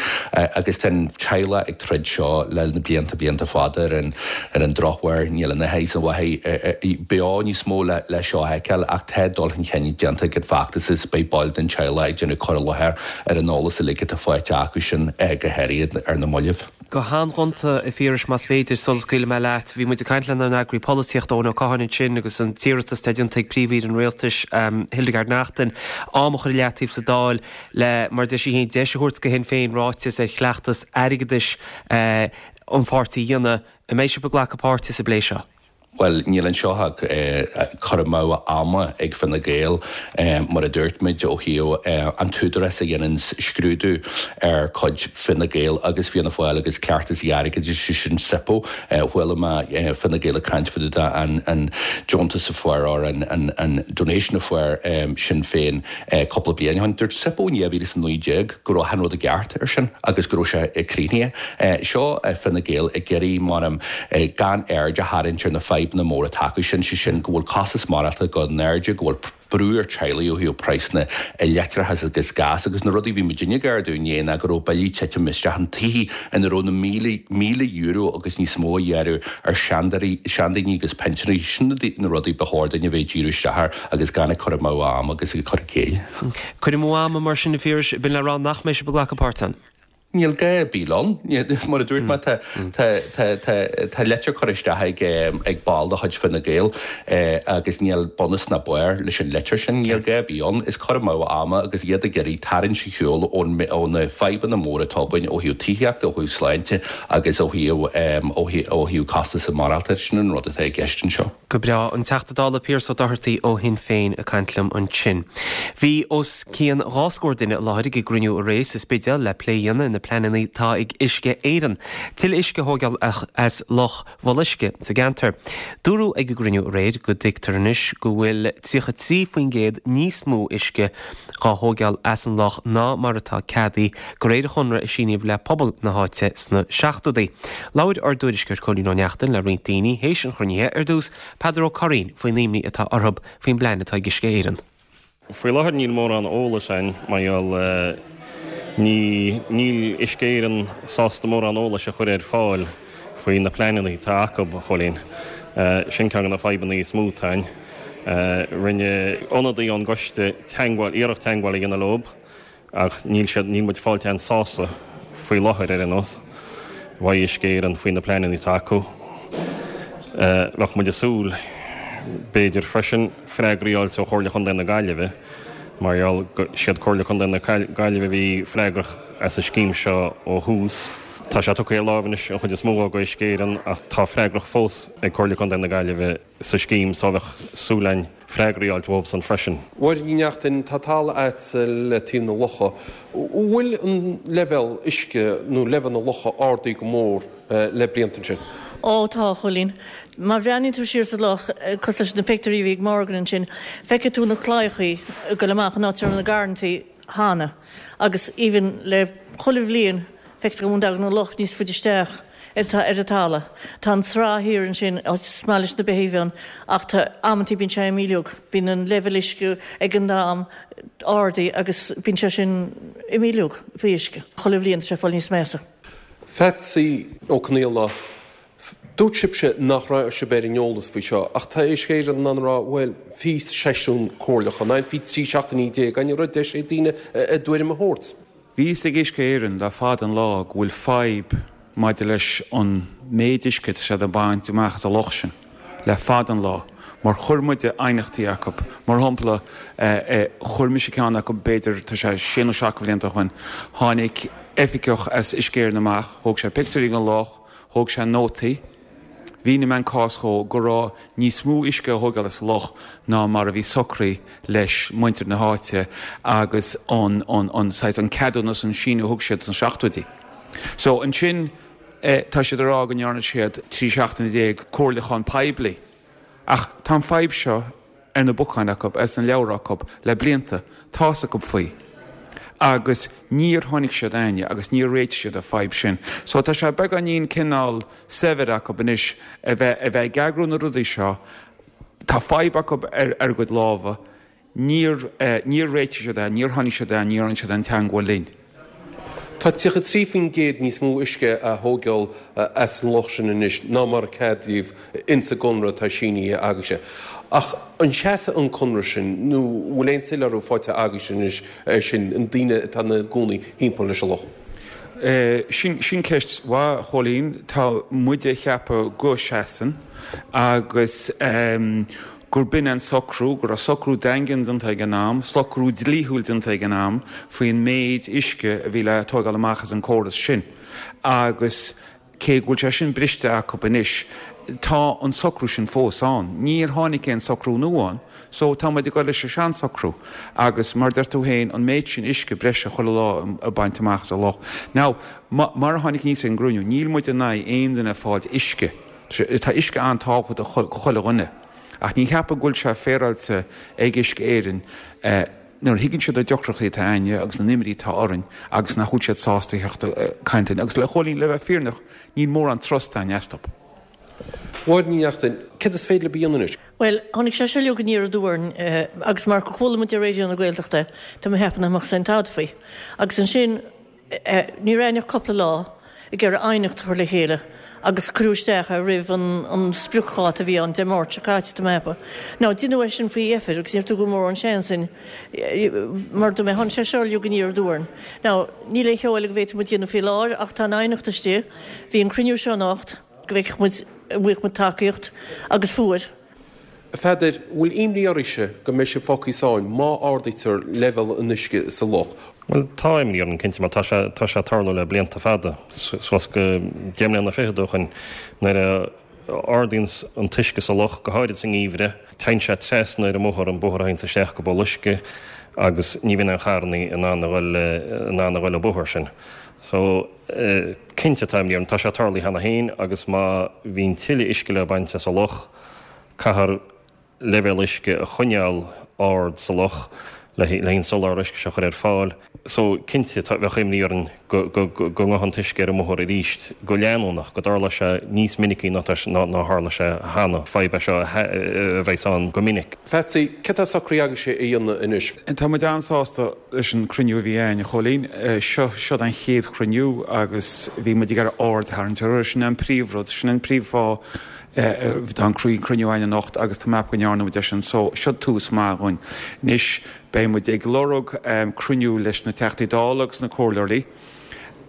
S11: Agus tá an teaghlach ag troid seo le na blianta, blianta fada ar an ar an drochuair níl an oiread is an mhaith beo níos mó le seo a fheiceáil ach tá dul chun cinn déanta ag an bhfeachtas is beidh baill den teaghlach ag déanamh cur i láthair ar an eolas uilig atá faighte acu sin go háirithe ar na mallaibh.
S1: Go han-ghonta, a Phiarais, más féidir, sula scaoilfidh mé leat. Bhí muid ag caint lenár n-eagraí polaitíochta, Eoin Ó Catháin ansin agus an t-iarratas atá déanta ag Príomh-Aoire an Rialtais, Hildegarde Naughton, am a chur i leataobh sa Dáil le, mar a deir sí féin, deis a thabhairt do Shinn Féin ráiteas ar chleachtas airgeadais an pháirtí a dhéanamh. An mbeidh sibh ag glacadh páirte sa bplé seo?
S11: Bhuel, níl anseo ach cur amú ama ag Fine Gael, mar a dúirt muid, ó thaobh an t-údarás a dhéanann scrúdú ar chuid Fine Gael agus Fianna Fáil agus cleachtas airgeadais, sé sin SIPO. Chuala mé Fine Gael ag caint fá dtaobh de an deontas a fuair, or an donation a fuair Sinn Féin cúpla bliain ó shin. Dúirt SIPO in 2019 go raibh achan rud i gceart ar sin agus go raibh sé críochnaithe. Seo Fine Gael ag iarraidh, measaim, gan aird a tharraingt ar na fadhbanna móra atá acu sin, sé sin go bhfuil costas maireachtála ag dul in airde, go bhfuil brú ar teaghlaigh ó thaobh praghsanna leictreachais agus gás agus na rudaí a bhí muidinne ag ardú inné ná go raibh billí ag titim isteach in tithe ina raibh na míle, €1,000 agus níos mó á ghearradh ar seandaoine agus pinsinéirí. Sin na rudaí ba chóir duinn a bheith ag díriú isteach air agus gan ag cur amú ama agus ag cur i gcéill.
S1: Cur amú ama mar sin, a Phiarais, b'in le rá nach mbeidh sibh ag glacadh páirt ann.
S11: Níl gá ar bith ann. Mar a dúirt mé, tá litir curtha isteach ag ball de chuid Fine Gael agus níl bunús ná barr leis an litir sin. Níl gá ar bith ann. Is cur amú ama agus iad ag iarraidh tarraingt ar shiúl ó na fadhbanna móra atá againn ó thaobh tithíochta, ó thaobh sláinte agus ó thaobh costas maireachtála. Sin an rud atá i gceist anseo.
S1: Go breá. An Teachta Dála Pearse Ó Dochartaigh ó Shinn Féin ag caint liom ansin. Bhí os cionn 2 scór duine i láthair ag an gcruinniú aréir sa Spidéal le plé a dhéanamh ar na pleananna atá ag Uisce Éireann tuilleadh uisce a thóigeáil as Loch Bholuisce sa gceantar. Dúradh ag an gcruinniú aréir go dtuigtear anois go bhfuil 33% níos mó uisce dhá thóigeáil as an loch ná mar atá ceadaithe de réir an chonradh a síníodh le pobal na háite sna seachtóidí. Labhair ár dtuairisceoir Cóilín Ó Neachtain le roinnt daoine théis an chruinnithe, ar dtús Peadar Ó Curraoin faoin imní atá orthu faoin bplean atá ag Uisce Éireann.
S12: Faoi láthair níl mórán eolais againn mar gheall ní níl Uisce Éireann sásta mórán eolais a chur ar fáil faoi na pleananna atá acu, a Chóilín. Sin ceann de na fadhbanna is mó atá againn. Rinne ionadaí ón gcoiste teagmháil, iarracht teagmháil a dhéanamh leob ach níl siad, níl muid fáilte aon sásamh faoi láthair ar aon nós, uaidh Uisce Éireann faoi na pleananna atá acu. Bheadh muid ag súil, b'fhéidir freisin, freagraí a fháilt ó Chomhairle Chontae na Gaillimhe mar gheall go siad Comhairle Contae na Gaillimhe a bhí freagrach as an scéim seo ó thús. Tá sé tugtha ar láimh anois an chuid is mó go Uisce Éireann ach tá freagracht fós ag Comhairle Contae na Gaillimhe sa scéim so bheadh súil againn freagraí a fháilt uathubsan freisin.
S13: Mháire Ní Neachtain, tá talamh a'dsa le taobh na locha. An bhfuil an leibhéal uisce nó leibhéal na locha ardaithe go mór le blianta ansin?
S14: Ó tá, a Chóilín. Má bhreathnaíonn tú siar sa loch, cosúil leis na pictiúirí a bhí ag Morgan ansin, feicfidh tú na claíochaí ag goil amach an áit a raibh na garrantaí cheana. Agus even le chuile bhliain, feictear go dtagann an loch níos faide isteach ar an talamh. Tá an sraith thiar ansin, is maith leis na beithígh ann, ach tá, amantaí bíonn sé imíliúg. Bíonn an leibhéal uisce ag an am ardaithe agus bíonn sé sin imíliúg faoi uisce. Chuile bhliain tá sé ag fáil níos measa.
S13: Pheatsaí Ó Conaola, Dúirt sibhse nach raibh sibh ar an eolas faoi seo, ach tá Uisce Éireann in ann a rá, bhuel, bhí seisiún comhairleachán ann, bhí 13 seachtainí ann, ní raibh deis ag daoine a dtuairim a thabhairt.
S10: Bhí fhios ag Uisce Éireann le fada an lá go bhfuil fadhb maidir leis an méid uisce atá siad ag baint amach as an loch sin le fada an lá mar chuir muide aighneachtaí acu. Mar shampla, chuir mise ceann acu b'fhéidir, tá sé sé nó seacht de bhlianta ó shoin, tháinig oifigeach as Uisce Éireann amach, thóg sé pictiúirí den loch, Thóg sé nótaí. Mhínigh mé an cás dhó go raibh níos mó uisce á thógáil as an loch ná mar a bhí socraithe leis muintir na háite agus an, an, an saghas, an ceadúnas, an síniú a thug siad sna seachtóidí. So ansin tá siad ag rá go ndearna siad 13 seachtaine comhairliúchán poiblí. Ach tá an fadhb seo ar na bacáin acu, agus sna leabhra acu le blianta, tá's acu faoi. Agus níor tháinig siad a'inne agus níor réitigh siad an fadhb sin. So tá sé beagáinín cineál saibhir acu anois a bheith, a bheith ag eagrú na rudaí seo. Tá fadhb acu ar, ar a gcuid lámha. Níor, níor réitigh siad é, níor tháinig siad a'inn, níor rinne siad aon teangmháil linn.
S13: Tá 33% níos mó uisce á thógáil as an loch sin anois ná mar a ceadaíodh ins an gconradh atá sínithe agaibhse. Ach an seasfaidh an conradh sin nó bhfuil aon soiléiriú faighte agaibhse anois air sin, na daoine atá ina gcónaí thimpeall leis an loch?
S10: Sin, sin ceist mhaith, a Chóilín. Tá muide a cheapadh go seasann agus gur b'in an socrú, go raibh socrú daingean déanta ag an am, socrú dlíthiúil déanta ag an am faoin méid uisce a bhí le tógáil amach as an córas sin agus cé go bhfuil sé sin briste acu anois, tá an socrú sin fós ann. Níor tháinig aon socrú nua ann so tá muid ag dul leis an seansocrú agus mar a deir tú féin, an méid sin uisce breise chuile lá ag baint amach as an loch. Now, mar a tháinig aníos ag an gcruinniú, níl muid in aghaidh aon duine ag fáilt uisce. Tá uisce an-tábhachtach do chuile dhuine. Ach ní cheapaim go bhfuil sé féaráilte ag Uisce Éireann nuair a thuigeann siad na deacrachtaí atá a'inne agus na n-imní atá orainn agus nach bhfuil siad sásta a theacht ag caint linn. Agus le Chóilín, le bheith fírinneach, níl mórán trust a'inn astu.
S13: Máire Ní Neachtain, céard is féidir libh a dhéanamh anois?
S14: Bhuel, tháinig sé seo uilig aniar aduaidh orainn agus mar gur chuala muid ar Raidió na Gaeltachta é, tá mé ag ceapadh nach mbeadh aon tada faoi. Agus ansin, Ní raibh ach cúpla lá ag iarraidh aighneacht a chur le chéile agus cuireadh isteach é roimh an spriocdháta a bhí ann Dé Máirt seo caite, tá mé ag ceapadh. Now, deineadh é sin faoi dheifir agus níor tugadh mórán seans dúinn mar dúirt mé, tháinig sé seo uilig aniar aduaidh orainn. Now, níl aon cheo eile go bhféadfadh muid dhéanamh faoi láthair ach tá an aighneacht istigh. Bhí an cruinniú seo anocht go bhfeicfeadh muid, an bhfaigheadh muid tacaíocht agus fuair.
S13: A Pheadair, bhfuil imní oraibhse go mbeidh sibh fágtha i sáinn má ardaítear leibhéal an uisce sa loch?
S12: Bhuel, tá imní orainn cinnte mar tá sé, tá sé ag tarlú le blianta fada, suas go deich mbliana fichead ó shoin. Nuair a ardaíonns an t-uisce sa loch, go háirid sa ngeimhreadh, téann sé trasna ar an mbóthar, an bóthar a théanns isteach go Boluisce agus ní bhíonn aon charrannaí in ann a dhul, in ann a dhul an bóthar sin. So, cinnte tá imní orainn, tá sé tarlaithe cheana féin agus má bhíonn tuilleadh uisce le baint as an loch, Caithfear leibhéal uisce a choinneáil ard sa loch le an soláthar uisce seo a chur ar fáil. So, cinnte, tá, bheadh imní orainn go, go, go ngabhfadh an t-uisce ar an mbóthar arís go leanúnach, go dtarlódh sé níos minicí ná tá, ná, ná tharla sé cheana. Fadhb é seo a, a bheas ann go minic.
S13: Pheatsaí, céard atá socraithe agaibhse a dhéanamh anois?
S10: Tá muid an-sásta leis an cruinniú a bhí againn, a Chóilín. Seo, seod an chéad chruinniú agus bhí muid ag iarraidh aird a tharraingt orthu. Sin an príomhrud, sin an príomhfháth.
S15: Tá an cruinniú againn anocht agus tá mé ag ceapadh go ndearna muid é sin so seo tús maith dhúinn. Anois beidh muid ag lorg cruinniú leis na Teachtaí Dála agus na Comhairleoirí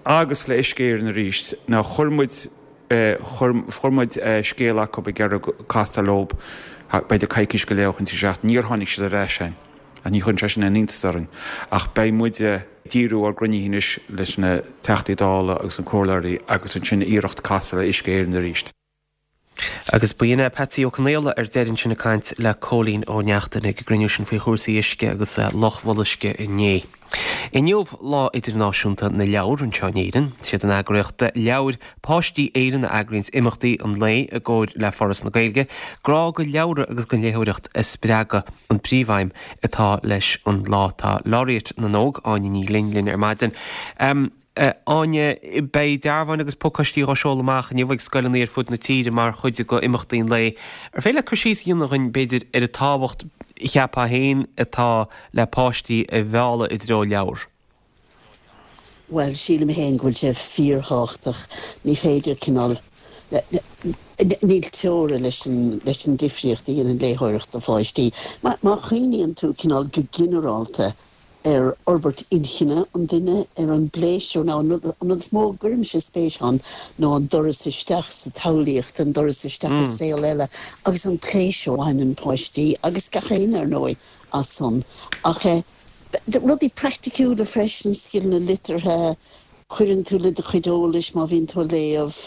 S15: agus le Uisce Éireann arís. Now chuir muid chuir muid scéal acu ag iarraidh castáil leo b'fhéidir coicís go leith ó shin trí seachtaine. Níor tháinig siad ar ais chugainn. Ach ní chuireann sé sin aon iontas orainn. Ach beidh muid ag díriú ár gcruinnithe anois leis na Teachtaí Dála agus na Comhairleoirí agus ansin iarracht casadh le Uisce Éireann arís.
S1: Agus ba shin é Patsy Ó Conaola ar deireadh ansin ag caint le Cóilín Ó Neachtain ag an gcruinniú sin faoi chúrsaí uisce agus Loch Bholuisce inné. Inniu Lá Idirnáisiúnta na Leabhar anseo in Éirinn. Siad an eagraíocht Leabhair Páistí Éireann a eagraíonns imeachtaí an lae i gcomhair le Foras na Gaeilge. Grá do leabhra agus don léitheoireacht a spreagadh an príomhaidhm atá leis an lá. Tá Laureate na nÓg, Áine Ní Ghlinn, linn ar maidin. Áine, Beidh dearbháin agus pacáistí á seoladh amach inniu ag scoileanna ar fud na tíre mar chuid de imeachtaí an lae. Ar féidir leat cur síos a dhéanamh dhúinn, b'fhéidir, ar an tábhacht, cheapfá féin, atá le páistí a mhealladh i dtreo leabhar?
S16: Bhuel, sílim féin go bhfuil sé fíorthábhachtach. Ní féidir cineál, níl teora leis an, leis an difríocht a dhéanann léitheoireacht do pháistí. Má, má chuimhníonn tú cineál go ginearálta ar fhorbairt inchinne an duine, ar an bpléisiúr, nó an rud, an rud is mó a gcuirimse spéis ann ná an doras isteach sa tsamhlaíocht, an doras isteach i saol eile agus an pléisiúr a bhaineann páistí, agus gach éinne ar ndóigh, as san. Ach eh, rudaí praiticiúla freisin, scileanna liteartha, cuireann tú le do chuid eolais má bhíonn tú ag léamh,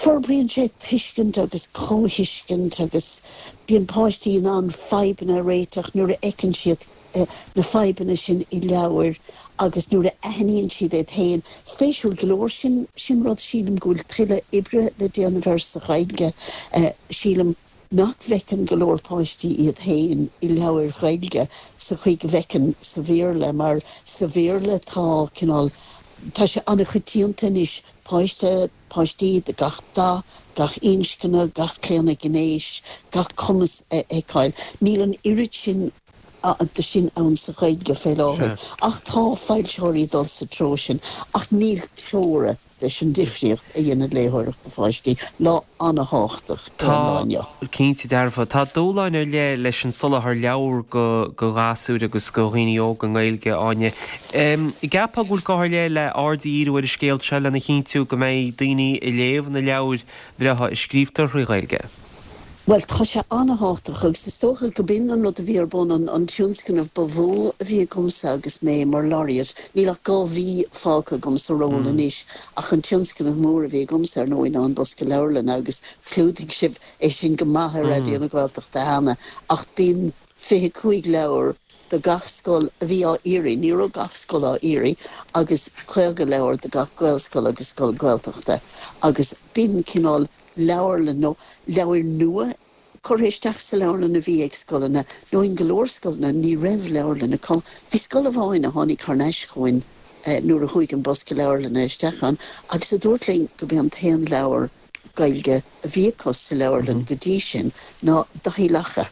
S16: forbraíonn sé tuiscint agus comhthuiscint agus bíonn páistí in ann fadhbanna a réiteach nuair a fheiceann siad na fadhbanna sin i leabhair agus nuair a aithníonn siad iad féin. Spéisiúil go leor, sin, sin rud sílim go bhfuil tuilleadh oibre le déanamh air sa Ghaeilge. Sílim nach bhfeiceann go leor páistí iad féin i leabhair Ghaeilge sa chaoi go bhfeiceann sa Bhéarla mar sa Bhéarla tá cineál, tá sé an-choitianta anois páiste, páistí de gach dath, gach inscne, gach claonadh gnéis, gach cumas a fheiceáil. Níl an oiread sin de sin ann sa Ghaeilge fé láthair ach tá foilsitheoirí ag dul sa treo sin ach níl teora leis an difríocht a dhéanann léitheoireacht do pháistí. Lá an-thábhachtach é an lá inniu.
S1: Tá, cinnte dearfa. Tá dúshláin ar leith leis an soláthar leabhar do ghasúir agus do dhaoine óga i nGaeilge, Áine. An gceapfá go bhfuil gá ar leith le aird a dhíriú ar an scéal seo lena chinntiú go mbeidh daoine ag léamh na leabhair bhreátha a scríobhtar thrí Ghaeilge?
S16: Bhuel, tá sé an-thábhachtach agus is dócha go b'in an rud a bhí ar bun, an tionscnamh ba mhó a bhí agamsa agus mé mar Laureate. Níl ach 2 mhí fágtha agam sa ról anois ach an tionscnamh mór a bhí agamsa, ar ndóigh, ná an Bosca Leabharlainne agus chlúdaigh sibh é sin go maith ar Raidió na Gaeltachta cheana ach b'in 25 leabhar do gach scoil a bhí á iarraidh, ní raibh gach scoil á iarraidh, agus 50 leabhar do gach Gaelscoil agus scoil Ghaeltachta agus b'in cineál leabharlann nó leabhair nua curtha isteach sa leabharlann a bhí ag scoileanna, nó in go leor scoileanna ní raibh leabharlann acu. Bhí scoil amháin a tháinig thar n-ais chugainn nuair a chuaigh an bosca leabharlainne isteach ann agus a dúirt linn go b'é an t-aon leabhar Gaeilge a bhí acu sa leabharlann go dtí sin ná Daithí Lacha.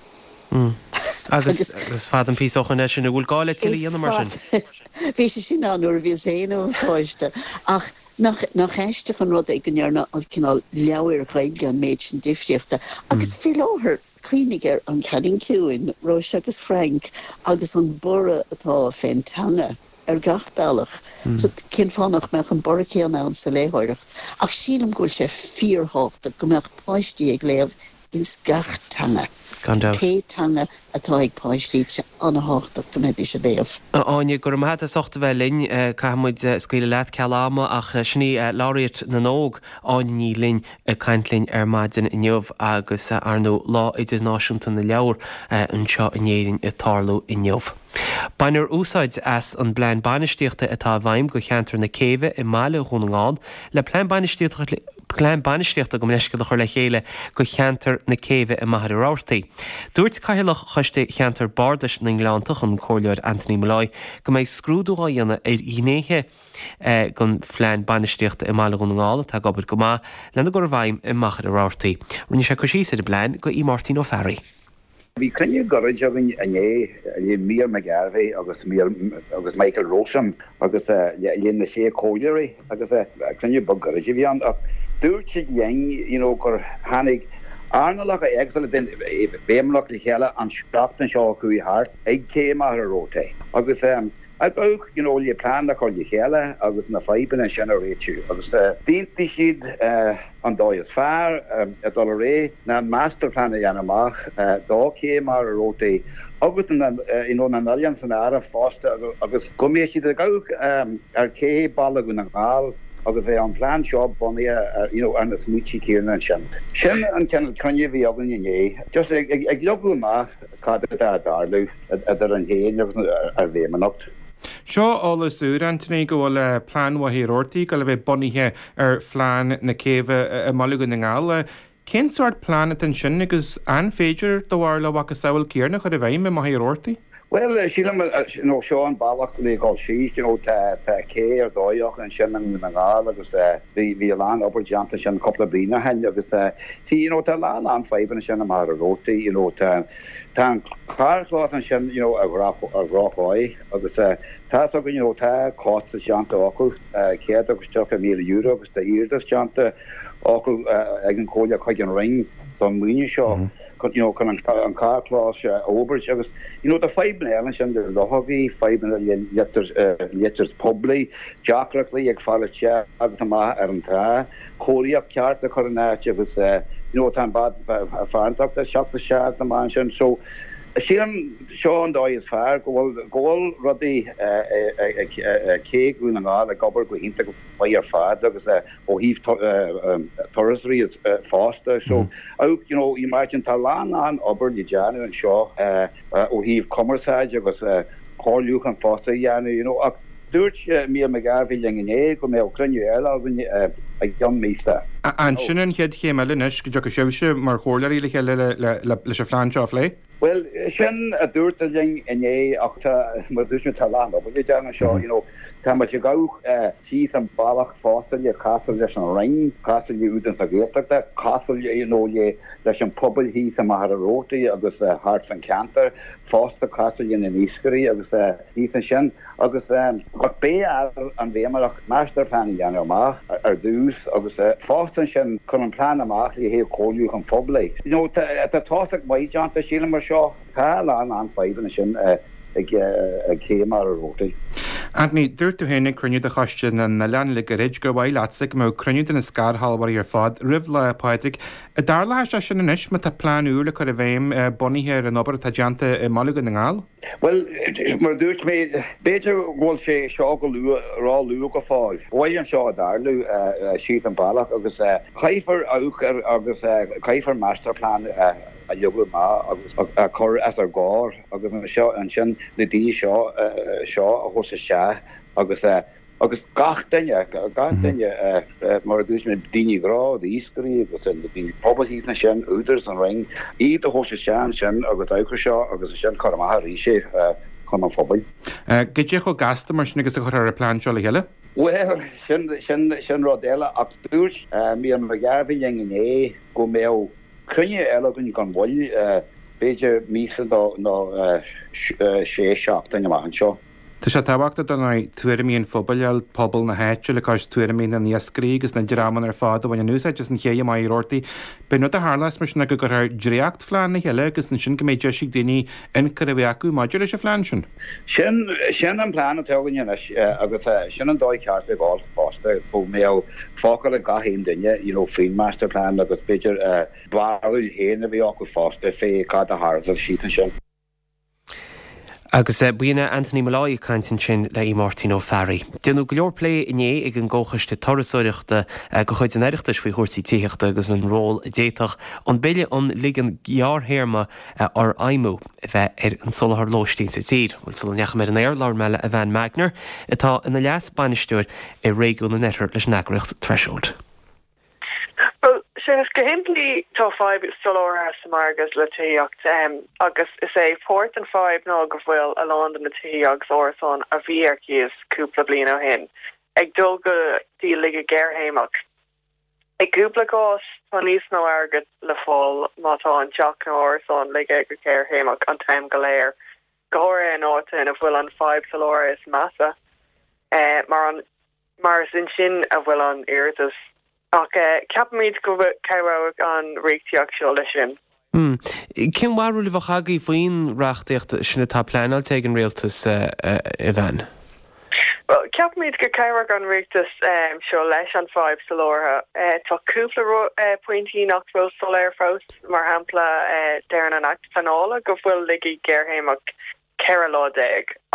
S1: Agus is fada an píosa ó shoin é sin. An bhfuil gá le tuilleadh a dhéanamh mar sin?
S16: Bhí sé sin ann nuair a bhíos féin i mo pháiste ach Nach aisteach an rud é go ndearna an cineál leabhair Ghaeilge an méid sin difríochta? Agus faoi láthair, cuimhnigh ar An Cailín Ciúin, Róise agus Frank agus an borradh atá fén teanga ar gach bealach. So cén fáth nach mbeadh an borradh céanna ann sa léitheoireacht? Ach sílim go bhfuil sé fíorthábhachtach go mbeadh páistí ag léamh ins gach teanga.
S1: Gan dabht.
S16: Pé teanga atá ag páistí, tá sé an-thábhachtach go mbeidís ag léamh.
S1: A Áine, go raibh maith agat as ucht a bheith linn. Caithfidh muid scaoileadh leat ceal ama ach sin í Laureate na nÓg, Áine Ní Ghlinn, ag caint linn ar maidin inniu agus ar ndóigh Lá Idirnáisiúnta na Leabhar anseo in Éirinn ag tarlú inniu. Bainfear úsáid as an bplean bainistíochta atá i bhfeidhm do cheantar na Céibhe i mbaile Dhún na nGall le plean bainistíochta plean bainistíochta gabh mo leithscéal a chur le chéile do cheantar na Céibhe i Machaire Rabhartaigh. Dúirt Cathaoirleach Choiste Cheantar Bardais na nGleanntach, an Comhairleoir Anthony Molloy, go mbeidh scrúdú á dhéanamh ar ghnéithe den phlean bainistíochta i mbaile Dhún na nGall atá ag obair go maith lena gcur i bhfeidhm i Machaire Rabhartaigh. Rinne sé cur síos ar an bplean do Mháirtín Ó Fearraigh.
S17: Bhí cruinniú gairid againn inné le Mícheál McGarvey agus agus Michael Rowsome agus le na sé comhairleoirí agus cruinniú beag gairid a bhí ann ach Dúirt siad linn you know gur tháinig earnálacha éagsúla den bhFeidhmeannacht le chéile an seachtain seo a chuaigh thart ag Cé Mhachaire Rabhartaigh agus ag amharc you know le plean a chur le chéile agus na fadhbanna sin a réitiú agus d'aontaigh siad an dóigh is fearr a dul ar aghaidh ná master plan a dhéanamh amach do Ché Mhachaire Rabhartaigh agus na you know na n-oileán san áireamh fosta agus go mbeidh siad ag amharc ar Ché Baile Dhún na nGall agus bheadh an plean seo bunaithe ar you know ar na smaointe céanna ansin. Sin an cineál cruinniú a bhí againn inné, just ag ag leagadh amach cad atá ag tarlú idir sinn féin agus an bhFeidhmeannacht.
S18: Seo eolas úr, Anthony, go bhfuil plean Mhachaire Rabhartaigh ag dul a bheith bunaithe ar phlean na céibhe i mBaile Dhún na nGall. Cén sórt plean atá ansin agus an féidir, do bharúil, a mhacasamhail céanna a chur i bhfeidhm i Machaire Rabhartaigh?
S17: Bhuel, sílim, you know, seo an bealach le dhul síos, you know, tá, tá cé ar dóigh acu ansin i nDún na nGall agus bhí, bhí a lán obair déanta ansin cúpla bliain ó shin agus tí, you know, tá a lán, lán fadhbanna ansin i Machaire Rabhartaigh, you know, tá, tá an carrchlós ansin, you know, ar dhroch, ar dhrochdhóigh agus tá's againn, you know, tá costas déanta acu, €130,000 agus tá iarratas déanta acu ag an Chomhairle chuig an Roinn don mhaoiniú seo. you know, chun an carrchlós a fhorbairt agus, you know, tá fadhbanna eile ansin le luchógaí, fadhbanna le leictreachas poiblí, deacrachtaí ag fáil isteach agus amach ar an trá, cóiríocht ceart a chur in áit agus, you know, tá an bád farantóireachta ag teacht isteach agus amach ansin. So, sílim seo an dóigh is fearr go bhfuil, go bhfuil rudaí ag Cé Dhún na nGall ag obair go hiontach maith ar fad agus ó thaobh turasóirí fosta. So, you know, imagine tá a lán lán obair le déanamh anseo ó thaobh cumarsáid agus comhairliúchán fosta a dhéanamh, you know. Ach dúirt Mícheál McGarvey linn inné go mbeadh cruinniú eile againn i gceann míosa.
S18: An sin an chéad chéim eile anois, go dtiocfaidh sibhse mar chomhairleoirí le chéile leis an phlean seo a phlé?
S17: Bhuel, sin a dúradh linn inné ach tá, mar a dúirt mé, tá a lán obair le déanamh anseo, you know. Tá muid ag gabháil síos an bealach fosta le casadh leis an Roinn, casadh le Údarás na Gaeltachta, casadh you know le leis an pobal thíos i Machaire Rabhartaigh agus thart san ceantar, fosta casadh le na n-iascairí agus thíos ansin. Agus ach beidh ar an bhFeidhmeannacht master plan a dhéanamh amach ar dtús agus fosta ansin chun an plean amach le haghaidh comhairliúchán phoiblí. You know tá tosach maith déanta sílim ar seo. Tá a lán lán fadhbanna ansin ag Cé Mhachaire Rabhartaigh.
S18: Anthony, dúirt tú féin ag cruinniú de Choiste na nOileán le gairid gur mhaith leatsa go mbeadh cruinniú de na scairshealbhóirí ar fad roimh Lá Pádraig. An dtarlóidh sé sin anois má tá plean úr le cur i bhfeidhm bunaithe ar an obair atá déanta i mBaile Dhún na nGall?
S17: Bhuel, mar a dúirt mé, b'fhéidir go bhfuil sé seo go luath, ró-luath go fóill. Ba mhaith liom seo a dtarlú síos an bealach agus caithfear amharc ar agus caithfear master plan a leagadh amach agus a chur os ár gcomhair agus ansin na daoine seo seo a thabhairt isteach agus Agus gach duine, gach duine, mar a dúirt mé, daoine gnó, iascairí agus na daoine pobail thíos ansin, Údarás, an Roinn, iad a thabhairt isteach ansin agus amharc ar seo agus ansin cur amach arís é chun an phobail.
S18: Goidé chomh gasta mar sin agus a chuirfear an plean seo le chéile?
S17: Bhuel, sin, sin, sin rud eile ach dúirt Mícheál McGarvey linn inné go mbeadh cruinniú eile againn gan mhoill, b'fhéidir míosa nó sé seachtain amach anseo.
S18: Tá sé tábhachtach dar ndóigh tuairimí an phobail a fháil, pobal na háite, le cois tuairimí na n-iascairí agus na dreamanna ar fad a bhaineann úsáid as an ché i Machaire Rabhartaigh. B'é an rud a tharlós mar sin ná go gcuirfear dréachtphlean le chéile agus ansin go mbeidh deis ag daoine ionchur a bheith acu maidir leis an phlean sin.
S17: Sin, sin an plean atá againn anois agus sin an dóigh cheart le dhul fosta, go mbeadh focal ag gach aon duine, you know, faoin master plan agus b'fhéidir barúil féin a bheith acu fosta fé cad a tharlódh síos ansin.
S1: Agus b'in é Anthony Molloy ag caint ansin le Aodh Máirtín Ó Fearraigh. Déanadh go leor plé inné ag an gComhchoiste Turasóireachta de chuid an Oireachtais faoi chúrsaí tithíochta agus an ról a d'fhéadfadh an Bille um Ligean Gearrthéarma a fhorfheidhmiú a bheith ar an soláthar lóistín sa tír. Bhuel, sula ndeachaigh mé ar an aer, labhair mé le Evanne Magner, atá ina leas-bainisteoir i réigiún an Oirthir leis an eagraíocht Threshold.
S19: Bhuel, Séamus, go shimplí tá fadhb soláthair sa margadh le tithíocht agus is é páirt den fadhb ná go bhfuil a lán de na tithí agus árasáin a bhí ar cíos cúpla bliain ó shin ag dul go dtí ligeadh gearrthéarmach. I gcúpla cás tá níos mó airgead le fáil má tá an teach nó árasán ligthe go gearrthéarmach an t-am go léir, go háirithe in áiteanna ina bhfuil an fadhb soláthair is measa mar an Mar is ansin a bhfuil an iarratas. Ach ceapaimid go cabhróidh an reachtaíocht seo leis sin.
S1: Cén bharúil a bheadh agaibh faoin reachtaíocht sin atá pleanáilte ag an Rialtas, a Evanne?
S19: Bhuel, ceapaimid go cabhróidh an reachtas seo leis an fadhb soláthair. Tá cúpla pointí nach bhfuil soiléir fós, mar shampla, deireann an Acht Pleanála go bhfuil laige géarchéimeach 14 lá,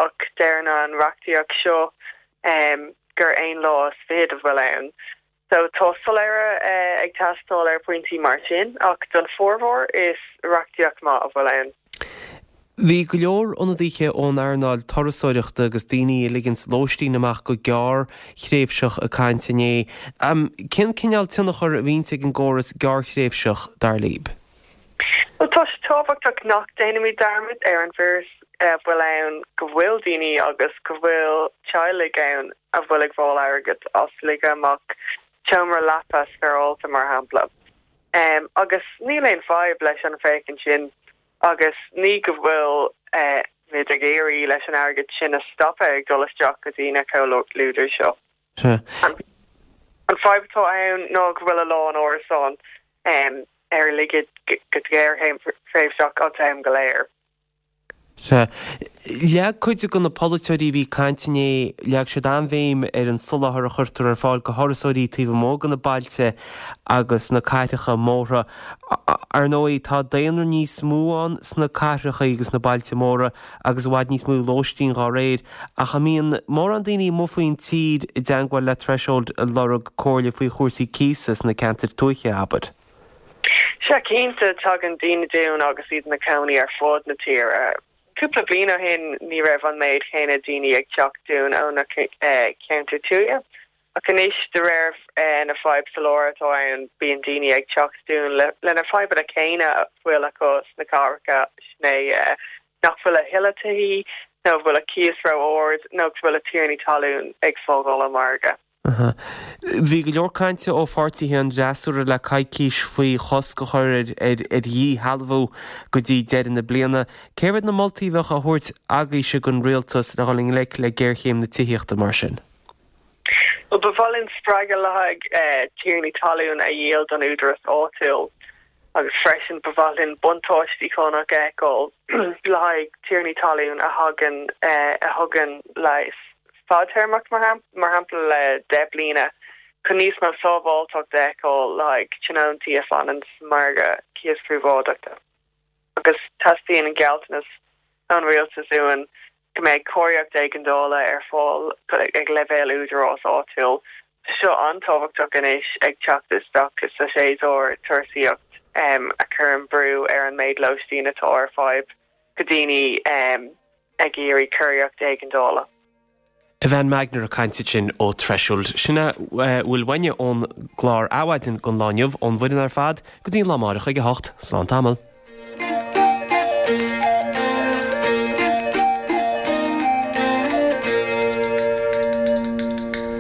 S19: ach deireann an reachtaíocht seo gur aon lá is fichead a bhfuil ann. So tá soiléire ag teastáil ar phointí mar sin, ach don formhór is reachtaíocht maith a bhfuil ann.
S1: Bhí go leor ionadaithe ón earnáil turasóireachta agus daoine a ligeanns lóistín amach go gearrthréimhseach ag caint inné. Cén cineál tionchar a bhíonns ag an gcóras gearrthréimhseach, dar libh?
S19: Bhuel, tá sé tábhachtach nach déanaimid dearmad ar an bhfíoras a bhfuil ann go bhfuil daoine agus go bhfuil teaghlaigh ann a bhfuil ag fáil airgead as ligeadh amach seomra leapa spéarálta, mar shampla. Agus níl aon fadhb leis an bhféachaint sin agus ní go bhfuil muid ag iarraidh leis an airgead sin a stopadh ag dul isteach go dtí na comhluadair seo. An fadhb atá ann ná go bhfuil a lán árasán ar ligeadh go gearrthréimhseach an t-am go léir.
S1: Sea. Leag cuid de na polaiteoirí a bhí ag caint inné, leag siad an-bhéim ar an soláthar a chuirtear ar fáil do thurasóirí taobh amuigh de na bailte agus na cathracha móra. Ar ndóigh, tá daonra níos mó ann sna cathracha agus na bailte móra agus i bhfad níos mó lóistín dhá réir. Ach an mbíonn mórán daoine amuigh faoin tír i dteangmháil le Threshold ag lorg comhairle faoi chúrsaí cíosa sna ceantair tuaithe, abair?
S19: Sea, cinnte, tagann daoine dúinn agus iad ina cónaí ar fud na tíre. Cúpla bliain ó shin ní raibh an méid chéanna daoine ag teacht dúinn ó na ceantair tuaithe, ach anois, de réir na fadhb soláthair atá ann, bíonn daoine ag teacht dúinn le na fadhbanna céanna a bhfuil acu sna cathracha, sin é nach bhfuil a thuilleadh tithí, nó bhfuil a cíos ró-ard, nó go bhfuil a tiarnaí talún ag fágáil an margadh.
S1: Bhí go leor cainte ó pháirtithe an fhreasúra le coicís faoi chosc a chur ar dhíshealbhú go dtí deireadh na bliana. Céard iad na moltaí a bheadh á thabhairt agaibhse don rialtas le dhul i ngleic le géarchéim na tithíochta mar sin?
S19: Bhuel, ba mhaith linn spreagadh le haghaidh tiarnaí talún a dhíol don údaras áitiúil agus freisin ba mhaith linn buntáistí cánach a fheiceáil le haghaidh tiarnaí talún a thagann a thugann léas fadtéarmach, mar shampla le 10 bliana, chun níos mó sábháilteacht a fheiceáil le haghaidh tionóntaí a fanann sa margadh cíos príobháideachta. Agus teastaíonn an gealltanas ón rialtas uainn go mbeidh cóiríocht éigeandála ar fáil ag leibhéal údarás áitiúil. Tá seo an-tábhachtach anois ag teacht isteach sa séasúr turasaíocht a chuireann brú ar an méid lóistín atá ar fáil go daoine ag iarraidh cóiríocht éigeandála.
S1: Evanne Magner ag caint ansin ó Threshold. Sin a bhfuil uainne ón gclár Adhmhaidin don lá inniu, ón bhfoireann ar fad, go dtí an lá amáireach ag a hocht. Slán tamall.